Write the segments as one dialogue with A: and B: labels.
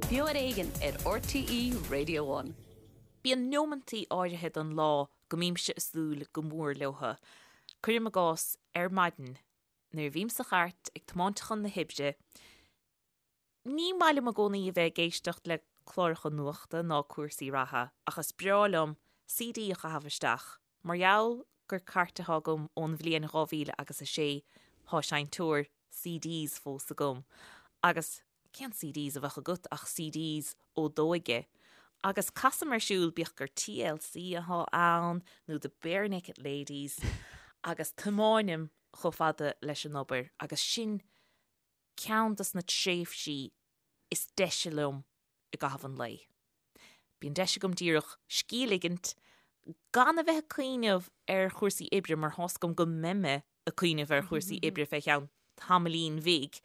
A: Beo ar Éigean ar RTÉ Radio One.
B: Bíonn neomantaí áirithe den lá go mbímse ag súil go mór leotha. Cuirim i gcás, ar maidin, nuair a bhím sa chairt ag tiomáint chun na hoibre, ní maith liom i gcónaí a bheith ag éisteacht le cláracha nuachta ná cúrsaí reatha ach is breá liom CD a chaitheamh isteach. Mar gheall gur cairt atá agam ón bhliain 2000 agus 6, thá seinnteoir CDs fós agam. Agus cén CDs a bheadh agat ach CDs ó d'óige? Agus casaim ar siúl, bíodh gur TLC athá ann nó The Barenaked Ladies, agus tiomáinim chomh fada leis an obair agus sin ceann dos na tréimhsí is deise liom i gcaitheamh an lae. Bíonn deis agam díreach scíth a ligint, gan a bheith ag cuimhneamh ar chúrsaí oibre mar thá's agam go mbeidh mé ag cuimhneamh ar chúrsaí oibre fé cheann tamaillín bhig,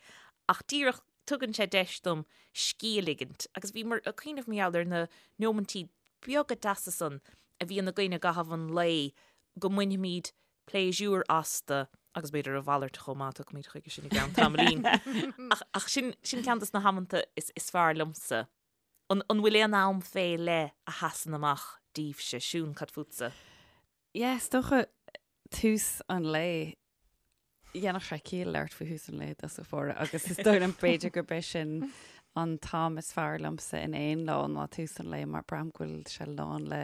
B: ach díreach tugann sé deis dom scíth a ligint. Agus bhíomar ag cuimhneamh mar gheall ar na neomaintí beaga deasa san a bhíonn againn i gcaitheamh an lae go mbainfimid pléisiúr astu agus b'fhéidir a mhalairt chomh maith, tiocfaimid chuige sin i gceann tamaillín. Ach, ach sin, sin ceann dos na hamanta is, is fearr liomsa. An, an bhfuil aon am fé leith a sheasann amach daoibhse? Siún, cad fútsa?
C: Yeah, is dócha tús an lae. Dhéanfadh sé ciall labhairt faoi thús an lae i dtosach báire agus is dóigh liom b'fhéidir gurb é sin an t-am is fearr liomsa in aon lá ná tús an lae mar braithim go bhfuil sé lán le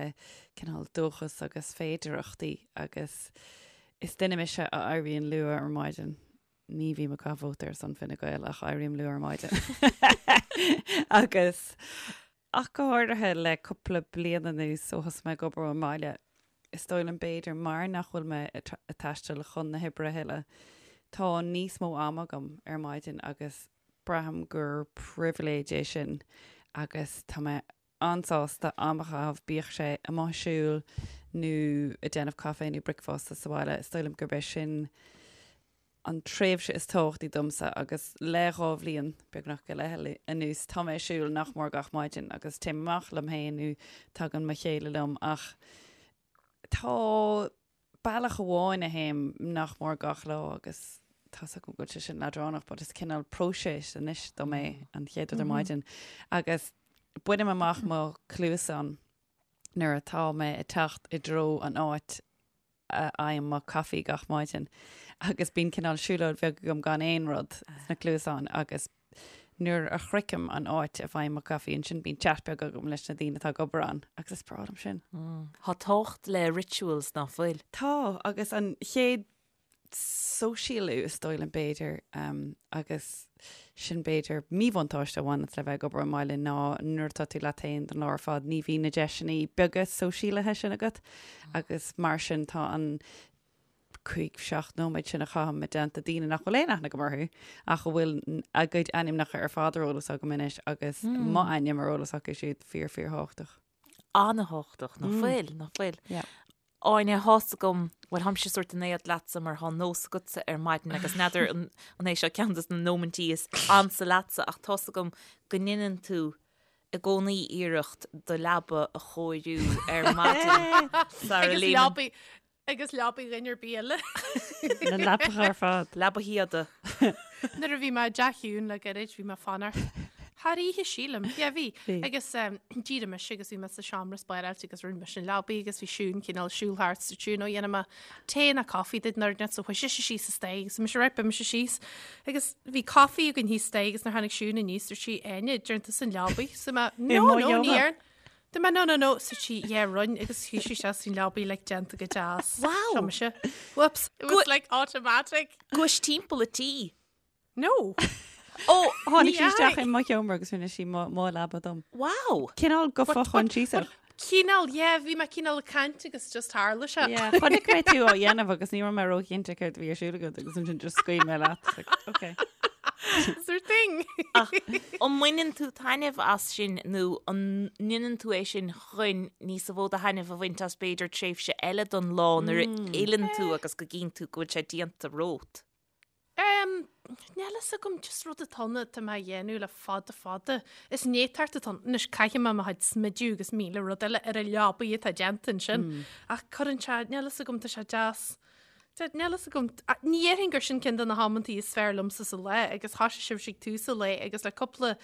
C: cineál dóchas agus féidearthachtaí agus is duine mise a éiríonn luath ar maidin. Ní bhím ag caitheamh vóta ar son Fine Gael ach éirím luath ar maidin. Agus ach go háirithe le cúpla bliain anuas ó thosaigh mé ag obair ón mbaile, is dóigh liom b'fhéidir mar nach bhfuil mé ag taisteal chun na hoibre a thuilleadh, tá níos mó ama agam ar maidin agus braithim gur pribhléid é sin agus tá mé an-sásta am a chaitheamh, bíodh sé amuigh ag siúl nó ag déanamh caife nó bricfeasta sa bhaile. Is dóigh liom gurb é sin an tréimhse is tábhachtaí domsa agus le dhá bhliain, beagnach go leith anuas, tá mé ag siúl nach mór gach maidin agus téim amach liom féin nó tagann mo chéile liom ach tá bealach amháin a théim nach mór gach lá agus tá's agam go bhfuil sé sin leadránach but is cineál próiseas anois dom é an chéad rud ar maidin agus bainim amach mo chluasáin nuair atá mé ag teacht i dtreo an áit a fhaighim mo caife gach maidin agus bíonn cineál siúlóid bheag agam gan aon rud sna cluasáin agus nuair a shroichim an áit a bhfaighim mo caife ansin bíonn chat beag agam leis na daoine atá ag obair ann agus is breá liom sin.
B: Tá tábhacht le rituals ná fuil?
C: Tá, agus an chéad sóisialú is dóigh liom b'fhéidir agus sin b'fhéidir míbhuntáiste a bhaineanns le bheith ag obair ón mbaile ná nuair atá tú leat féin don lá ar fad ní bhíonn na deiseanna beaga sóisialaithe sin agat agus mar sin tá an 5, 7 nóiméad sin a chaithim i dteannta daoine nach bhfuil aon aithne agam orthu ach a bhfuil a gcuid ainmneacha ar fad ar eolas agam anois agus m'ainm ar eolas acu siúd fíor fíor thábhachtach.
B: An-thábhachtach, ná fuil, ná fuil. Áine, thá's agam, bhuel tháimse sórt in éad leatsa mar thá nós agatsa ar maidin agus n'fheadar an an é seo ceann dos na nóimintí is ansa leatsa ach tá's agam go ndeineann tú i gcónaí iarracht do leaba a chóiriú ar maidin sara
D: Agus
B: léimeann
D: leabaidh Agus leabaidh dhuine ar bith eile.
C: Na leapacha ar fad.
B: Leaba Shíoda.
D: Nuair a bhí mé i dteach Shiún le gairid, bhí mé ag fanacht thar oíche, sílim. Yeah, bhí.
C: Bhí.
D: Agus d'éirigh mise agus bhí mé sa seomra spáráilte agus rinne mise an leabaidh agus bhí Siún cineál siúl thart sa tSiún ó dhéanfaidh mé tae nó coffee duit nuair so chuaigh sise síos an staighre agus mise right beidh mise síos. Agus bhí coffee againn thíos staighre agus nuair tháinig Siún aníos dúirt sí Áine, ndearna tusa an leabaidh. So mé no
C: mo
D: no ní
C: sheomra.
D: dhearn. Dúirt mé no no no so sí yeah rinne agus shuigh sí isteach san leabaidh like déanta go deas.
B: Wow.
D: Seo mise. Whoops. It was like automatic.
B: Gabhais timpeall an tí.
D: No.
B: Ó,
C: Tháinig
D: Ní
C: sí isteach
D: fheadh.
C: i mo sheomra agus rinne sí mo mo leaba dom.
B: Wow.
C: Cineál go fochoinsiasach.
D: Cineál, yeah, bhí mé cineál ag caint agus just tharla sé.
C: Yeah, chonaic mé tú á dhéanamh agus ní raibh mé róchinnte céard a bhí ar siúl agat agus ansin just scaoil mé leat. Like, okay.
D: It's her thing.
B: Ach an mbaineann tú taitneamh as sin nó an ndéanann tú é sin chun níos mó de thaitneamh a bhaint as b'fhéidir tréimhse eile don lá nuair a fhilleann tú agus go gcíonn tú go bhfuil sé déanta romhat?
D: Um, níl fhios agam just rud atá ann atá mé a dhéanamh le fada fada. Is néatacht atá ann. Anois caithfidh mé mo chuid smidiú agus míle rud eile ar an leabaidh atá déanta ansin. Ach cuireann sé, níl fhios agam, tá sé deas. Níl fhios agam. Ní dhéarfainn gur sin ceann de na hamantaí is fearr liomsa sa lá agus thoisigh sibhse ag tús an lae agus le cúpla.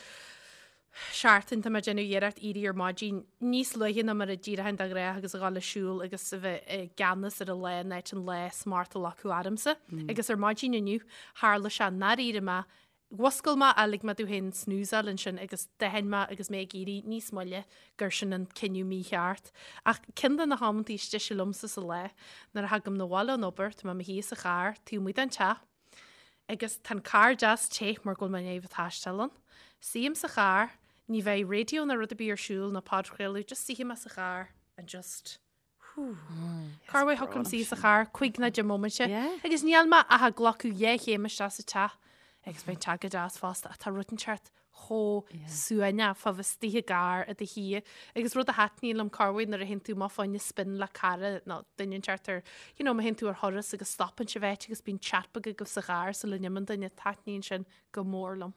D: seachtain tá mé ag déanamh iarracht éirí ar maidin níos luaithe ná mar a d'éireoinn de ghnáth agus a dhul ag siúl agus a bheith i gceannas ar an lá in áit an lá smacht a ghlacadh ormsa. Agus ar maidin inniu tharla sé nár éirigh mé, mhuscail mé ach lig mé domh féin snoozeáil ansin agus d'aithin mé agus mé ag éirí níos moille gur sin an cinneadh mícheart. Ach ceann de na hamantaí is deise liomsa sa lá, nuair a thagaim 'na bhaile ón obair, tá mé i mo shuí sa charr taobh amuigh den teach, Agus tá an carr deas te mar go bhfuil mé i ndiaidh a bheith ag taisteal ann. Suím sa charr, ní bheidh raidió ná rud ar bith ar siúl ná podchraoladh, just suífidh mé sa charr and just whew. Corruair thiocfadh liom suí sa charr 5 nó 10 móiminte agus níl mé ach ag glacadh dhá chéim isteach sa teach agus beidh an teach go deas fosta ach tá rud inteacht chomh suaimhneach fá bheith istigh i gcarr i do shuí agus rud a thaitníonn liom corruair nuair a théann tú amach fá choinne spin le cara nó duine inteacht ar you know má théann tú ar thuras agus stopann sibh áit agus bíonn chat beag agaibh sa charr sula n-imíonn duine taitníonn sin go mór liom.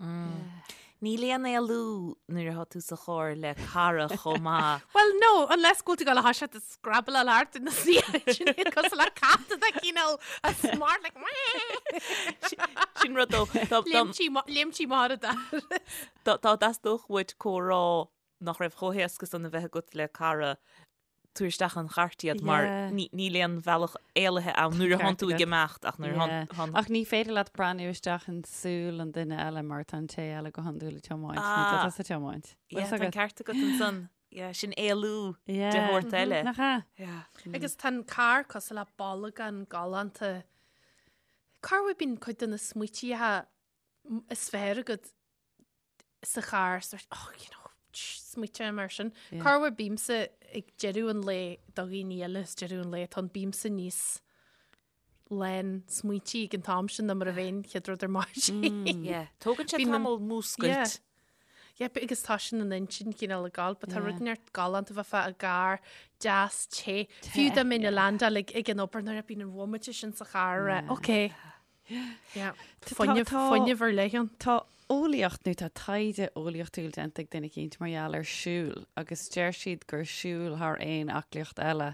B: Níl aon éalú nuair atá tú sa charr le cara chomh maith.
D: Well no, unless go bhfuil tú ag dul a thoiseacht ag scrabble thart ina suí sin iad cosúil le cat atá cineál a smart like
B: Sin rud dó.
D: Léimtí mar a dar.
B: Dá dteastódh uait comhrá nach raibh chomh héasca san a bheith agat le cara, tabhair isteach an chairt iad mar níl aon bhealach éalaithe ann nuair a thánn tú ag imeacht ach nuair a
C: thánn. Ach ní féidir leat breathnú isteach in súil an duine eile mar tá an té eile go hiondúil ag tiomáint nó tá tusa ag tiomáint.
B: Tá an ceart agat ansan. Yeah, sin éalú de shórt eile.
C: Nach ea?
B: Yeah.
D: Agus tá an carr cosúil le bolgán galánta. Corruair bíonn cuid de na smaoitithe is fearr agat sa charr, sort, oh, you know, smaoite mar sin. Yeah. Corruair bímse ag deireadh an lae do dhaoine eile is deireadh an lae, tá an bímse níos lán smaointí ag an t-am sin ná mar a bheinn chéad rud ar maidin.
B: Yeah. Tógann sé tamall múscailt.
D: Yeah. Yeah, agus tá sin an intinn cineál ag gabháil, but tá rud inteacht galánta bheith i gcarr deas te. Fiú dá mbeinn ag landáil ag ag an obair nuair a bíonn an bhomaite sin sa charr, yeah. Ok. Yeah. Fuinneamh, fuinneamh ar leith ann.
C: Tá eolaíocht nó tá taighde eolaíochtúil déanta ag duine eicínt mar gheall ar siúl agus deir siad gur siúl thar aon aclaíocht eile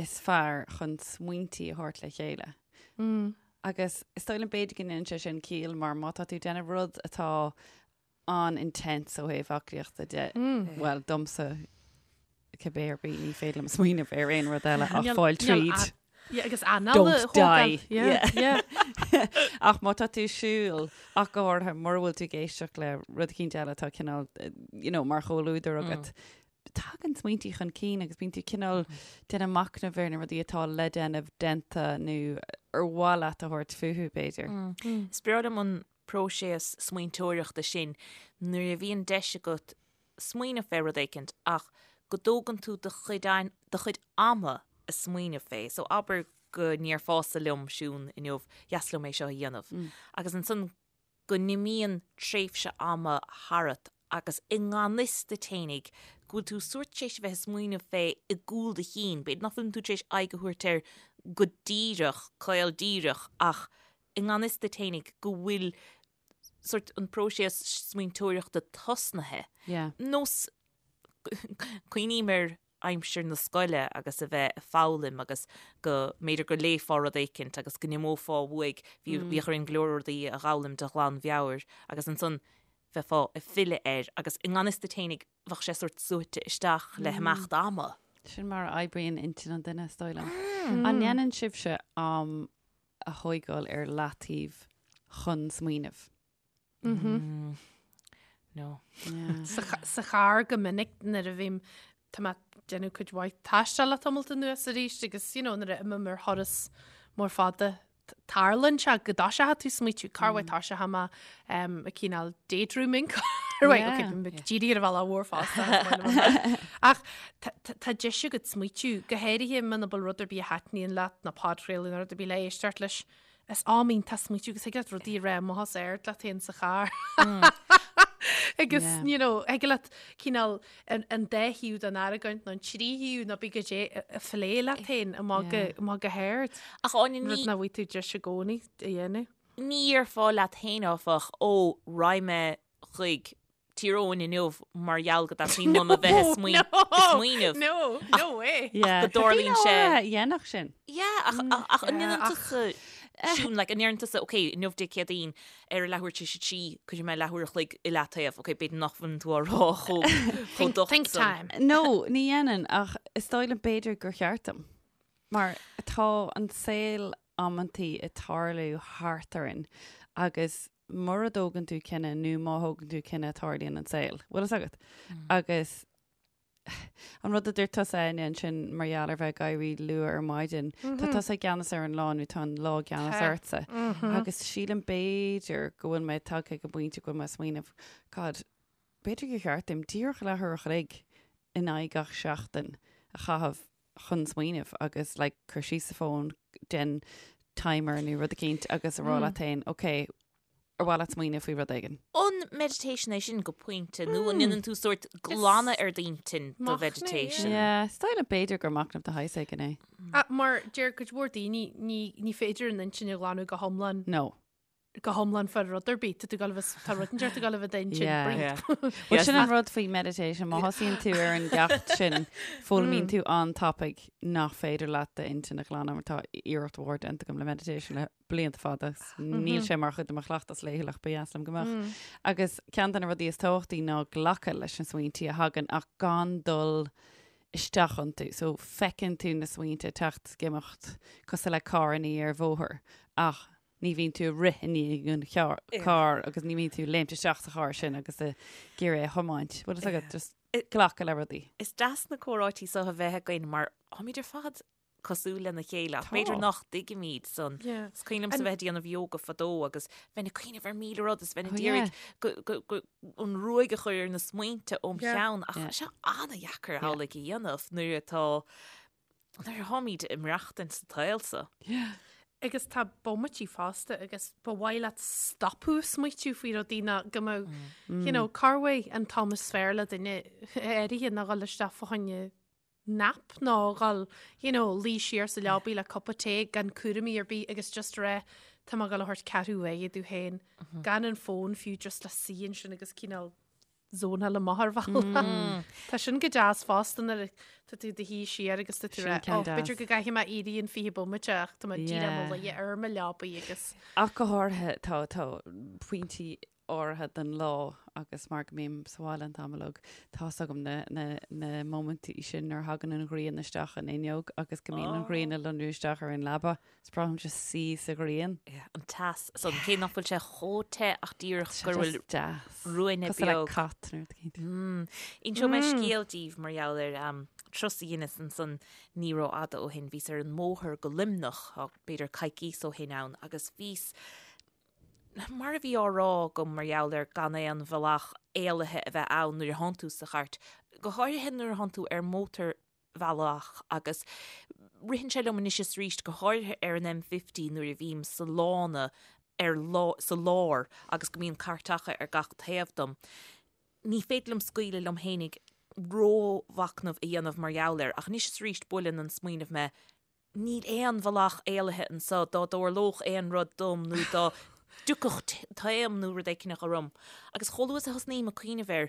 C: is fearr chun smaointí a thabhairt le chéile. Agus is dóigh liom b'fhéidir go ndéanann sé sin ciall mar má tá tú ag déanamh rud atá an-intense ó thaobh aclaíochta de, bhuel, domsa cibé ar bith ní féidir liom smaoineamh ar aon rud eile ach fáil tríd.
D: Yeah, agus anáil a
C: Don't die. Yeah, yeah. Ach má tá tú ag siúl ach go háirithe mura bhfuil tú ag éisteacht le rud eicínt eile atá cineál, you know, mar chomhluadar agat, tagann smaointí chun cinn agus bíonn tú cineál déanamh machnamh ar na rudaí atá le déanamh déanta nó ar mhaith leat a thabhairt fúthu, b'fhéidir.
B: Is breá liom an próiseas smaointeoireachta sin nuair a bhíonn deis agat smaoineamh fé rud éicint ach go dtógann tú do chuid do chuid ama a smaoineamh fé. So abair go ndéarfása liom, Siún, inniu, dheas liom é seo a dhéanamh. Agus ansan go n-imíonn tréimhse ama tharat agus i ngan fhios duit fhéinig go bhfuil tú sórt tar éis a bheith ag smaoineamh fé i gcúl do chinn, b'fhéidir nach bhfuil tú tar éis aghaidh a thabhairt air go díreach, caol díreach, ach i ngan fhios duit fhéinig go bhfuil sórt an próiseas smaointeoireachta tosnaithe.
C: Yeah.
B: Nós cuimhním ar aimsir na scoile agus a bheith ag foghlaim agus go mb'fhéidir go léifeá rud éicint agus go n-imeofá uaidh, bhí, bhíodh orainn go leor rudaí a dh'fhoghlaim de ghlanmheabhair agus ansan bheifeá ag filleadh air agus i ngan fhios duit fhéinig bheadh sé sórt suaite isteach le himeacht ama.
C: Sin mar a oibríonn intinn an duine, is dóigh liom. An ndéanann sibhse am a thóigeáil ar leataobh chun smaoineamh?
B: Mm. No.
C: Yeah.
D: Sa, sa charr go minic nuair a bhím tá mé ag déanamh cuid mhaith taistil le tamalt anuas arís agus you know, nuair a imím ar thuras mór fada t- tarlaíonn sé go dtoiseoidh tú smaoitiú cá bhfuil toiseoidh mé um, ag cineál daydreaming Right,
C: Yeah.
D: okay, bím ag díriú ar an bhealach mhór fosta, is maith liom an rud. Ach tá- tá tá deis agat smaoitiú, go háirithe muna bhfuil rud ar bith a thaitníonn leat nó podchraoladh nó rud ar bith le éisteacht leis. Is am iontach smaoitiú agus thig leat rudaí a rá amach os ard leat féin sa charr. Agus,
C: Yeah.
D: you know, thig leat cineál an, an dá thaobh den argóint nó an trí thaobh nó bí go dé a phlé leat féin amach go,
C: Yeah.
D: amach go hard.
B: Ach Áine,
D: Rud
B: ní,
D: nach bhfaighidh tú deis i gcónaí a dhéanamh.
B: ní dhéarfá leat féin áfach, ó, raghaidh mé chuig Tír Eoghain inniu mar gheall go dteastaíonn uaim a bheith ag smaoineamh.
D: No, no way.
C: Yeah.
B: go dtarlaíonn sé-
C: Dhéanfadh
B: sin. Yeah, ach, ach, ach an ndéanann
D: ach-
B: tusa... Siún, like, an ndeireann tusa, ok, inniu Dé Céadaoin, ar a leathuair tar éis a 3, cuirfidh mé leathuair a chloig i leataobh, ok, b'fhéidir nach bhfuil tú á rá chomh chomh docht
D: Think
B: san.
D: time.
C: No, ní dhéanann, ach is dóigh liom b'fhéidir gur cheart dom. Mar tá an saol amantaí ag tarlú thart orainn agus mura dtógann tú cinneadh nó má thógann tú cinneadh tarlaíonn an saol. Bhfuil fhios agat? Agus an rud a dúirt tusa Áine ansin mar gheall ar bheith ag éirí luath ar maidin, tá tusa i gceannas ar an lá nó tá an lá i gceannas
D: Tá.
C: ortsa. Agus sílim b'fhéidir go bhfuil mé tagtha ag an bpointe go bhfuil mé ag smaoineamh, God, b'fhéidir gur cheart dom díreach leathuair a chloig in aghaidh gach seachtain a chaitheamh chun smaoineamh agus like cur síos an fón, déan timer nó rud eicínt agus a rá leat féin, ok, ar mhaith leat smaoineamh faoi rud éigin?
B: An meditation é sin go pointe nó an ndéanann tú sórt glanadh ar d'intinn do
D: Machnamh,
B: mheditation?
C: Yeah, is dóigh liom b'fhéidir gur machnamh de shaghas éigin é.
D: Ah, Mar deir cuid mhór daoine ní, ní féidir an intinn a ghlanadh go hiomlán
C: No.
D: go hiomlán fá rud ar bith. Tá tú ag gabháil a bheith, tá rud inteacht ag gabháil a bheith i d'intinn.
C: Yeah.
D: Breathe.
B: Yeah.
C: Well, sin an rud faoi meditation, má thosaíonn tú ar an gceacht sin, foghlaimíonn tú an-tapaidh nach féidir leat d'intinn a ghlanadh mar tá iarracht mhór déanta agam le meditation le blianta fada. Níl sé mar chuid de mo chleachtas laethúil ach ba dheas liom go mbeadh. Agus ceann de na rudaí is tábhachtaí ná glacadh leis na smaointí a thagann ach gan dul isteach iontu. So feiceann tú na smaointe ag teacht is ag imeacht cosúil le carrannaí ar bhóthar ach ní bhíonn tú ag rith i ndiaidh an carr agus ní bhíonn tú ag léimt isteach sa charr sin agus ag iarraidh é a thiomáint. Bhfuil fhios agat just glacadh le rudaí.
B: Is deas na comhráití seo a bheith againn mar táimid ar fad cosúil lena chéile ach b'fhéidir nach dtuigimid san. Is cuimhin liomsa bheith ag déanamh yoga fadó agus bheinn ag cuimhneamh ar 1000 rud is bheinn ag iarraidh an ruaig a chur ar na smaointe óm cheann ach tá sé an-dheacair amhlaidh a dhéanamh nuair atá nuair atáimid ag maireachtaint sa tsaol seo.
D: Agus tá bomaití fosta agus ba mhaith leat stopadh smaoitiú faoi rudaí ná go mbeadh, you know, corruair an t-am is fearr le duine áirithe ná dhul isteach fá choinne nap nó dhul, you know, luí siar sa leabaidh le cupa tae gan cúraimí ar bith agus just rá tá mé ag dul a thabhairt ceathrú uaire domh féin gan an fón fiú just le suí ansin agus cineál zónáil amach ar bhealach. Tá sin go deas fosta nuair tá tú i do shuí siar agus tá tú
C: Sin
D: rá,
C: ceann
D: oh, b'fhéidir
C: deas.
D: go gcaithfidh mé éirí in 20 bomaite ach tá mé díreach i mo
C: Yeah.
D: luí ar mo leabaidh agus
C: Ach go háirithe tá tá pointí áirithe den lá agus mar go mbím sa bhaile an t-am uilig, tá's agam na, na, na móimintí sin nuair a thagann an ghrian isteach an fhuinneog agus go mbíonn an ghrian ag lonrú isteach ar an leaba. Is breá liom just suí sa ghrian.
B: Yeah, an teas san, cé nach bhfuil sé chomh te ach díreach
C: Tá sé
B: go bhfuil
C: just deas.
B: ruainne
C: Cosúil le
B: beag.
C: cat nó rud éicint.
B: Mm. Inseoidh mé scéal daoibh mar gheall ar um, turas a dheineas ansan ní rófhada ó shin. Bhíos ar an mbóthar go Luimneach, tá b'fhéidir coicíos ó shin ann, agus bhíos Mar a bhí á rá agam mar gheall ar gan aon bhealach éalaithe a bheith ann nuair a thánn tú sa chairt, go háirithe nuair a thánn tú ar mhótarbhealach agus ritheann sé liom anois is arís, go háirithe ar an M50 nuair a bhím sa lána ar sa lár agus go mbíonn cairteacha ar gach taobh dom. Ní féidir liom scaoileadh liom fhéinig rómhachnamh a dhéanamh mar gheall air ach anois is arís buaileann an smaoineamh mé, Níl aon bhealach éalaithe anso dá dtarlódh aon rud dom nó dá dtiocfadh taom nó rud éicneach orm. Agus chomh luath is a thosnaím ag cuimhneamh air,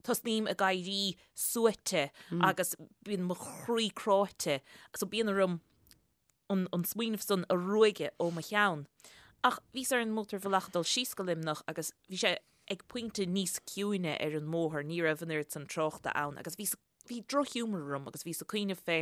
B: tosnaím ag éirí suaite agus bíonn mo chroí cráite. So bíonn orm an smaoineamh san a ruaigeadh ó mo cheann. Ach bhíos ar an mótarbhealach ag dul síos go Luimneach agus bhí sé ag pointe níos ciúine ar an mbóthar, ní raibh an oiread san tráchta ann agus bhíos Bhí drochghiúmar orm agus bhíos ag cuimhneamh fé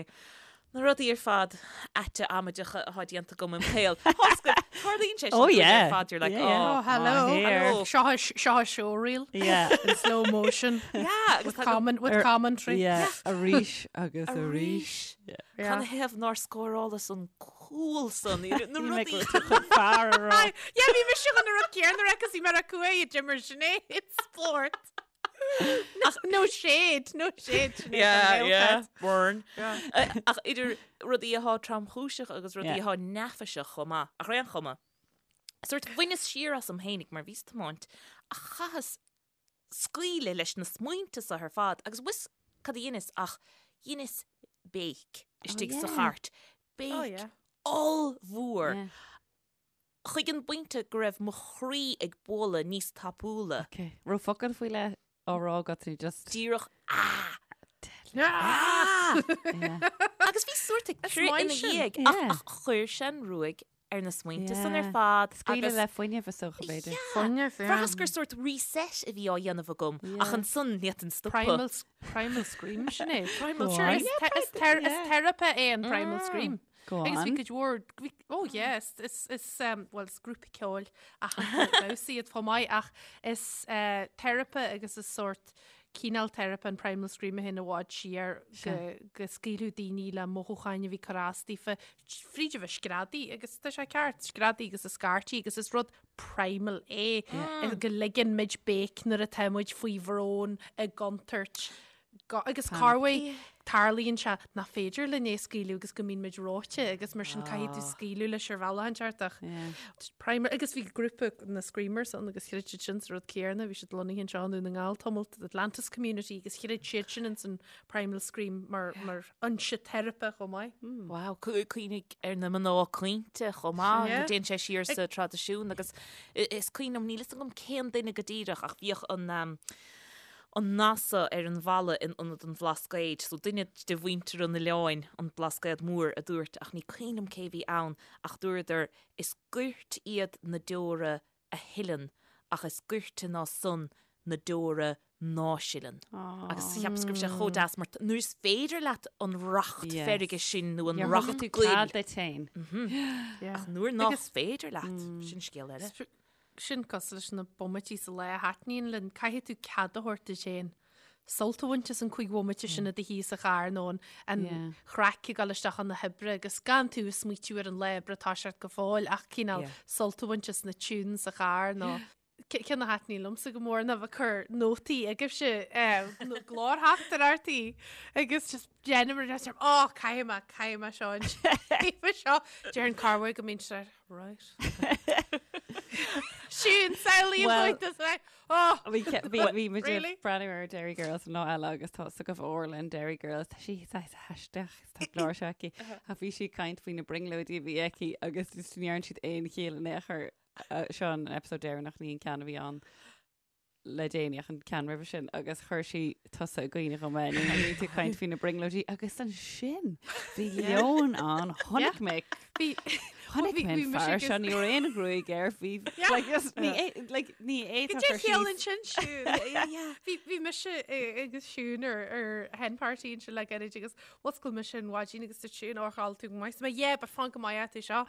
B: na rudaí ar fad aite amaideacha atá déanta agam im shaol. Tarlaíonn sé sin
C: Oh
B: dúinn
C: yeah.
B: ar fad, you're like,
C: Yeah, yeah.
B: oh,
D: Oh, hello.
C: Ah, here.
B: Hello.
D: Seo seo showreel
C: Yeah.
D: in slow motion.
B: Yeah, agus
D: With,
B: tá go-
D: comment, with
C: Ar-
D: commentary.
C: Yeah, arís agus arís.
B: Arís.
C: Yeah.
B: Canathaobh nár scórálas an cúl san, na
C: Bhí mé
B: rudaí.
C: go chun fear a rá.
D: Yeah, bhí mise chun an rud céanna a rá 'cause bhí mé ar cúig a d'imir Sinéad spórt. No shade, no shade. Sinéad,
B: Yeah,
D: an
B: yeah,
D: Gaeltacht.
B: burn. Ach idir rudaí atá tromchúiseach agus rudaí
C: Yeah.
B: atá neafaiseach chomh maith, ach ar aon chuma. Sórt bhaineas siar asam fhéinig mar bhíos ag tiomáint ach chaitheas scaoileadh leis na smaointe seo ar fad agus bhfuil 'fhios cad a dheineas ach dheineas béic istigh sa
C: yeah.
B: chairt.
D: Oh,
B: Béic
D: yeah.
B: ollmhór.
C: Yeah.
B: Chuig an bpointe go raibh mo chroí ag bualadh níos tapúla.
C: Ok. Raibh focal faoi leith á rá agat nó just.
B: Díreach ah!
D: Ah!
C: Yeah.
B: Agus bhí sórt ag
D: Is
B: crith
D: maith
B: ina
D: sin.
B: dhiaidh
C: Yeah.
B: ach chuir sé an ruaig ar na smaointe san ar fad.
C: Scaoileadh le fuinneamh is dócha, b'fhéidir.
D: Fuinneamh, yeah.
B: Bhraitheas gur sórt reset a bhí á dhéanamh agam ach ansan ní fhéadfainn stopadh.
D: Primal, primal scream sin é. Primal scream. Is teiripe é an primal scream.
C: Go
D: Agus bhí
C: on.
D: cuid mhór, bhí, oh yeah, is, is, is, um, well, is grúpa ceoil aitheanta damhsa iad chomh maith ach is uh, teiripe agus is sórt cineál teiripe an primal scream a théann i bhfad siar go, go scaoileadh daoine le mothúcháin a bhí ag cur as daofa fríd a bheith screadaí agus tá sé ceart, screadaí agus a scairtí agus is rud primal é mm. go ligeann muid béic nuair atá muid faoi bhrón i gcontúirt. Agus corruair tarlaíonn sé nach féidir linn é scaoileadh agus go mbíonn muid reoite agus mar sin caithfidh tú scaoileadh leis ar bhealach inteacht ach primal agus bhí grúpa na Screamers ann agus chreid siad sin sa rud céanna, bhí siad lonnaithe anseo i nDún na nGall tamall, the Atlantis Community agus chreid siad sin ins an primal scream mar mar fhoinse teiripe chomh maith.
B: Wow, cuimhnigh ar na mná caointe chomh maith, go dtéann sé siar sa traidisiún agus is cuimhin liom, níl fhios agam cén duine go díreach ach bhíodh an an nath so ar an bhalla in ionad an Bhlascaoid, so duine de mhuintir an oileáin, an Blascaod Mór, a dúirt, ach ní cuimhin liom cé bhí ann, ach dúradar, is goirt iad na deora a shileann ach is goirte ná san na deora ná sileann. Agus cheapas go raibh sé chomh deas mar nuair is féidir leat an racht feirge sin nó an racht goil.
C: Cead duit féin.
B: Ach nuair nach féidir leat, sin scéal eile.
D: Sin cosúil leis na bomaití sa lá a thaitníonn linn, caithfidh tú cead a thabhairt duit féin sult a bhaint as an chúig bhomaite sin i do shuí sa charr nó an chraic ag dul isteach chun na hoibre agus gan tú ag smaoitiú ar an lá oibre atá ort go fóill ach cineál sult a bhaint as na tunes sa charr nó ceann a thaitníonn liomsa go mór ná bheith ag cur nótaí agaibhse nó glórtheachtaireachtaí agus just déanaim ar á caithfidh mé caithfidh mé seo an seo Déarfainn corruair go mbíonn sé Right. Siún, samhlaím
C: Well-
D: dhuit is like, oh!
C: Bhí ce- bhí bhí muid ag
D: Really?
C: breathnú ar Derry Girls an lá eile agus tá fhios agaibh Orla in Derry Girls tá sí saghas aisteach is tá glór seo aici ach bhí sí ag caint faoi na brionglóidí a bhí aici agus just ní dhearna siad aon chiall in aon chor eh, seo an episode deireanach ní an ceann a bhí ann le déanaí ach an ceann roimhe sin agus chuir sí tusa i gcuimhne dhom é nuair a bhí tú ag caint faoi na brionglóidí agus ansin bhí leon ann chonaic mé
D: Bhí
C: chonaic
D: bhí-
C: mé an
D: bhí mise
C: fear
D: agus-
C: seo ní raibh aon ghruaig air bhí like just ní é- like ní
D: Go
C: fhéadfadh
D: dté
C: cur
D: chiall
C: síos
D: ansin Siún. Bhí bhí mise eh, agus Siún ar ar hen party ansin le gairid agus Mhuscail mise ar maidin agus dúirt Siún ó chodlail tú go maith. So mé yeah but fan go maith tú seo.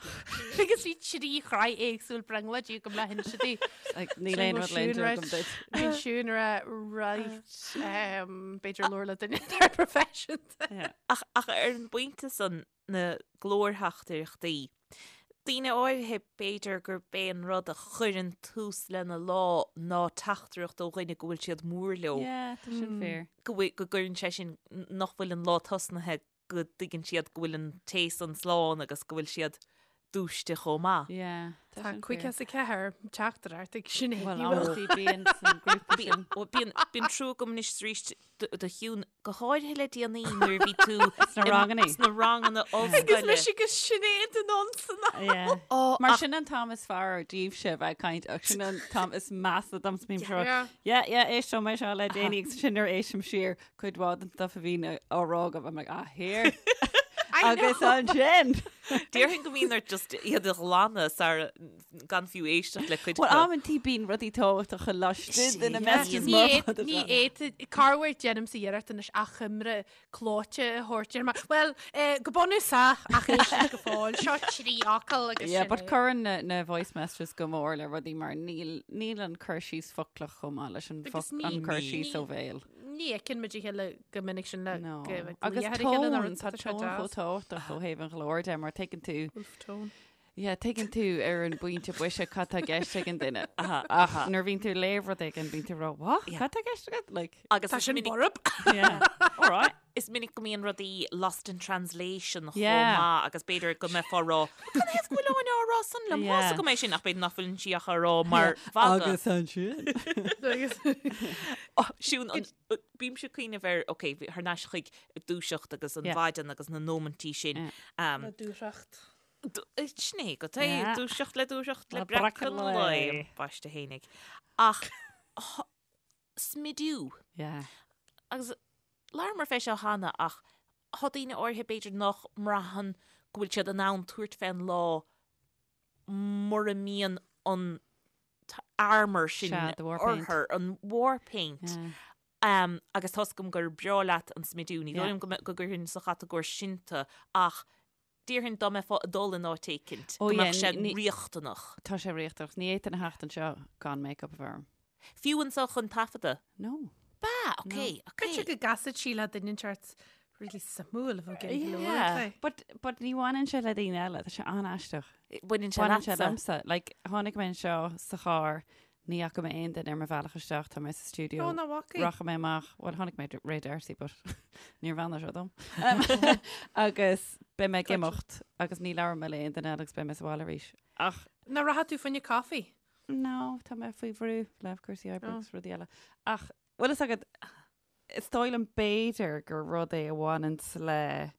D: Agus bhí trí shraith éagsúil brionglóidí agam le hinse di.
C: Like, níl aon rud le inse agam duit.
D: Bhí Siún ar right um, b'fhéidir labhair le duine atá proifisiúnta.
C: Yeah.
B: Ach, ach ar an bpointe san na glórtheachtaireachtaí, Daoine áirithe, b'fhéidir gurb é an rud a chuireann tús lena lá ná teachtaireacht ó dhuine go bhfuil siad mór leo.
C: Yeah, tá sin fíor.
B: Go bhfuil, go gcuireann sé sin, nach bhfuil an lá tosnaithe go dtuigeann siad go bhfuil an té san slán agus go bhfuil siad dúiste chomh maith.
C: Yeah, tá
D: Tá
C: sin fíor.
D: 54 teachtaireacht ag Sinéad.
C: Well,
D: Ní bhfuil.
C: amantaí bíonn san grúpa sin.
B: Bíonn, bíonn trua agam anois arís do Shiún, go háirithe le déanaí nuair a bhí tú
C: Sna ranganna.
B: sna ranganna
D: Agus
B: ollscoile.
D: mise agus Sinéad in ansan.
C: Yeah.
B: Ó,
C: Mar
B: ach-
C: sin an t-am is fearr daoibhse bheith ag caint ach sin an t-am is measa dom bím seo.
D: Yeah.
C: Yeah, yeah, éisteoidh mé seo le déanaí agus sin nuair éistim siar cuid mhaith den stuff a bhíonn á rá agam I'm like, ah, here.
D: I
C: Agus
D: know.
C: ansin.
B: Déarfainn go mbíonn ort just iad a ghlanadh sara gan fiú éisteacht le cuid
C: Well,
B: acu.
C: amantaí bíonn rudaí tábhachtacha laistigh de na
B: Sin.
C: messages
D: Ní
C: mar
D: fhéad-
C: fad
D: ní
C: atá.
D: fhéadfaidh corruair déanaimse iarracht anois achoimre clóite a thabhairt ar mar well eh, go bunúsach ach éist go fóill seo trí fhocal agus
C: Yeah,
D: sin
C: but
D: é.
C: cuireann na, na voice messages go mór le rudaí mar níl, níl an cur síos foclach chomh maith leis an,
D: Agus
C: foc,
D: ní-
C: an cur
D: ní-
C: síos ó bhéal.
D: Ní fheiceann muid a chéile go minic sin le
C: No.
D: go bheith
C: Agus
D: glaoch ar a chéile nó
C: tón,
D: rud
C: tá
D: tá sé
C: tón chomh
D: deas.
C: tábhachtach ó thaobh an ghlóir de mar tuigeann tú
D: Wolf tone.
C: Yeah, tuigeann tú ar an bpointe boise cad tá i gceist ag an duine. Ach nuair a bhíonn tú ag léamh rud éigin bíonn tú ag rá, what?
B: Yeah.
C: Cad tá i gceist agat? Like,
B: Agus
D: Tá
B: is
D: sin
B: minic-
D: borb.
C: yeah. All right.
B: Is minic go mbíonn rudaí lost in translation chomh
C: Yeah.
B: maith agus b'fhéidir go mbeifeá ag rá, Cad é go bhfuil Áine á rá san liom?
C: Yeah.
B: Tá 's agam é sin ach b'fhéidir nach bhfuil sí ach á rá mar mhagadh.
C: Agus ansin.
D: Agus
B: Oh, Siún, an- bímse ag cuimhneamh ar, ok, thar n-ais chuig dúiseacht agus an
C: Yeah.
B: mhaidin agus na nóimintí sin.
C: Yeah.
B: Um,
D: Na dúthracht.
B: Sin é go é
C: Yeah.
B: dúiseacht le dúiseacht le
C: Le
B: breacadh
C: breacadh
B: an
C: lae.
B: lae, baiste fhéinig. Ach smidiú.
C: Yeah.
B: Agus labhramar fé seo cheana ach tá daoine áirithe b'fhéidir nach mbraitheann go bhfuil siad in ann tabhairt fén lá. mura mbíonn an t-armour sin
C: Sea, the war paint.
B: orthu, an war paint.
C: Yeah.
B: Um, agus tá's agam gur breá leat an smidiú, ní dóigh
C: Yeah.
B: liom go mbe- go gcuirfinn sa chatagóir sin tú ach déarfainn dá mbeifeá ag dul in áit éicint,
C: Ó,
B: go
C: yeah,
B: mbeadh sé
C: ní-
B: riachtanach.
C: Tá sé riachtanach. Ní fhéadfainn a theacht anseo gan make-up a bheith orm.
B: Fiú anseo chun taifeadadh?
C: No.
B: Ba, ok, ok.
D: B'fhéidir go gcasfadh sí le duine inteacht really suimiúil a bheadh ag iarraidh
B: Yeah.
D: labhairt léi.
C: But, but ní bhaineann sé le daoine eile, tá sé an-aisteach.
B: Baineann sé
C: Baineann sé
B: leatsa.
C: liomsa. Like, tháinig mé anseo sa charr, ní fhaca mé aon duine ar mo bhealach isteach, tá mé sa stiúideo.
D: Ó, nach bhfaca.
C: Rachaidh mé amach, bhuel tháinig mé Ray D'Arcy, but níor bheannaigh sé dom. Um, agus beidh mé ag imeacht agus ní labhróidh mé le aon duine eile agus beidh mé sa bhaile arís. Ach
D: Nach rachaidh tú fá choinne coffee?
C: no, tá mé faoi bhrú le cúrsaí oibre
D: Oh.
C: agus rudaí eile. Ach bhfuil fhios agat, is dóigh liom b'fhéidir gur rud é a bhaineanns le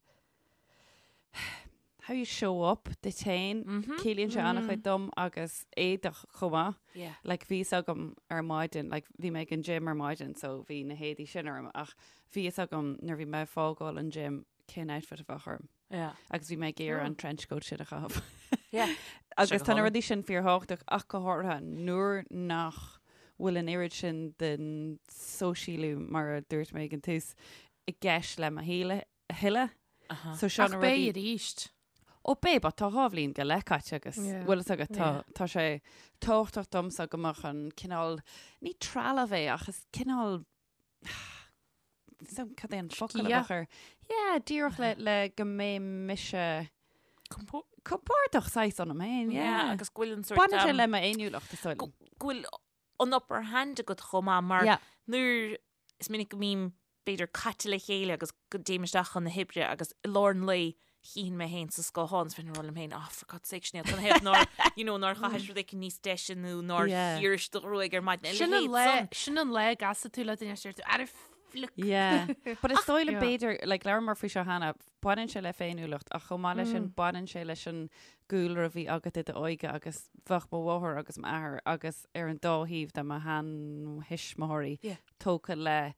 C: how you show up duit féin, ciallaíonn sé an-chuid dom agus éadach chomh maith.
B: Yeah.
C: Like bhí fhios agam ar maidin, like bhí mé ag an gym ar maidin so bhí na héadaí sin orm ach bhí fhios agam nuair bhí mé ag fágáil an gym cén outfit a bheadh orm.
B: Yeah.
C: Agus bhí mé ag iarraidh an trench coat sin a chaitheamh.
B: Yeah.
C: Agus
B: Sé
C: tá na
B: go
C: rudaí sin fíorthábhachtach ach go háirithe nuair nach bhfuil an oiread sin den sóisialú mar a dúirt mé ag an tús i gceist le mo shaol a thuilleadh. So seo
D: Ach
C: na
D: beidh
C: rudaí
D: arís.
C: Ó beidh, but tá 2 bhliain go leith caite agus
D: Yeah.
C: bhfuil fhios agat tá
D: Yeah.
C: tá sé tábhachtach domsa go mbeadh an cineál ní trealamh é ach is cineál so cad é an focal a
D: Sciath.
C: bheadh air? Yeah, díreach le le go mbeidh mise compordach saghas ionam féin,
B: Yeah,
C: yeah.
B: agus go bhfuil an sort
C: Baineann sé
B: um,
C: le m'fhéiniúlacht is dóigh
B: go
C: liom.
B: go bhfuil an upper hand agat chomh maith mar
C: Yeah.
B: nuair is minic go mbím b'fhéidir caite le chéile agus go dtéim isteach chun na hoibre agus i lár an lae chífinn mé féin sa scáthán is bheinn ag rá liom féin ah for God's sake Sinéad cad ina thaobh nár you know nár chaithis rud éicint níos deise nó nár
C: Yeah.
B: chíorais do ghruaig ar maidin a
D: Sin an
B: leithéid
D: lá
B: san.
D: sin an lá a gcasfaidh tú le duine is deir tú ara fliuch.
C: Yeah. But is dóigh liom
D: Yeah.
C: b'fhéidir, like, labhramar faoi seo cheana, baineann sé le féiniúlacht ach chomh maith leis sin baineann sé leis an gcúlra a bhí agat i d'óige agus bheadh mo mháthair agus m'athair agus ar an dá thaobh de mo sheanthuismitheoirí
B: Yeah.
C: tógtha le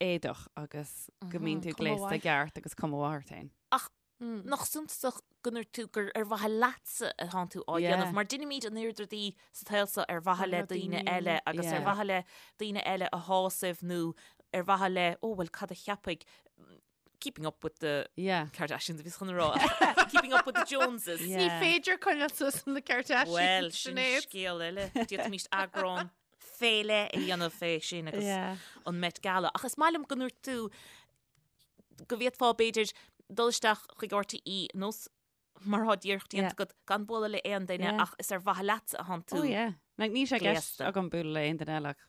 C: éadach agus go mbíonn tú
D: Cuma
C: gléasta
D: mhaith.
C: ceart agus cuma mhaith ort féin.
B: Ach nach suntasach go ndúirt tú gur ar mhaithe leatsa atánn tú á
C: Yeah.
B: dhéanamh, mar deinimid an oiread rudaí sa tsaol seo ar mhaithe le
D: Le
B: daoine
D: daoine
B: eile agus ar
C: Yeah.
B: mhaithe le daoine eile a shásamh nó ar mhaithe le, ó bhuel cad a cheapfaidh, keeping up with the
C: Yeah.
B: Kardashians a bhíos chun a rá, keeping up with the Joneses.
C: Yeah.
D: Ní féidir coinneáil suas le Kardashians.
B: Bhuel, sin
D: Sinéad.
B: scéal eile. D'fhéadfaimis eagrán fé leith a dhéanamh fé sin agus
C: Yeah.
B: an Met Gala. Ach is maith liom go ndúirt tú go bhféadfá b'fhéidir dul isteach chuig RTÉ nós mar atá díreach déanta
C: Yeah.
B: agat gan bualadh le aon duine
C: Yeah.
B: ach is ar mhaithe leatsa atánn tú.
C: Oh yeah. Like, níl sé i gceist
B: gléasta.
C: agam bualadh le aon duine eile ach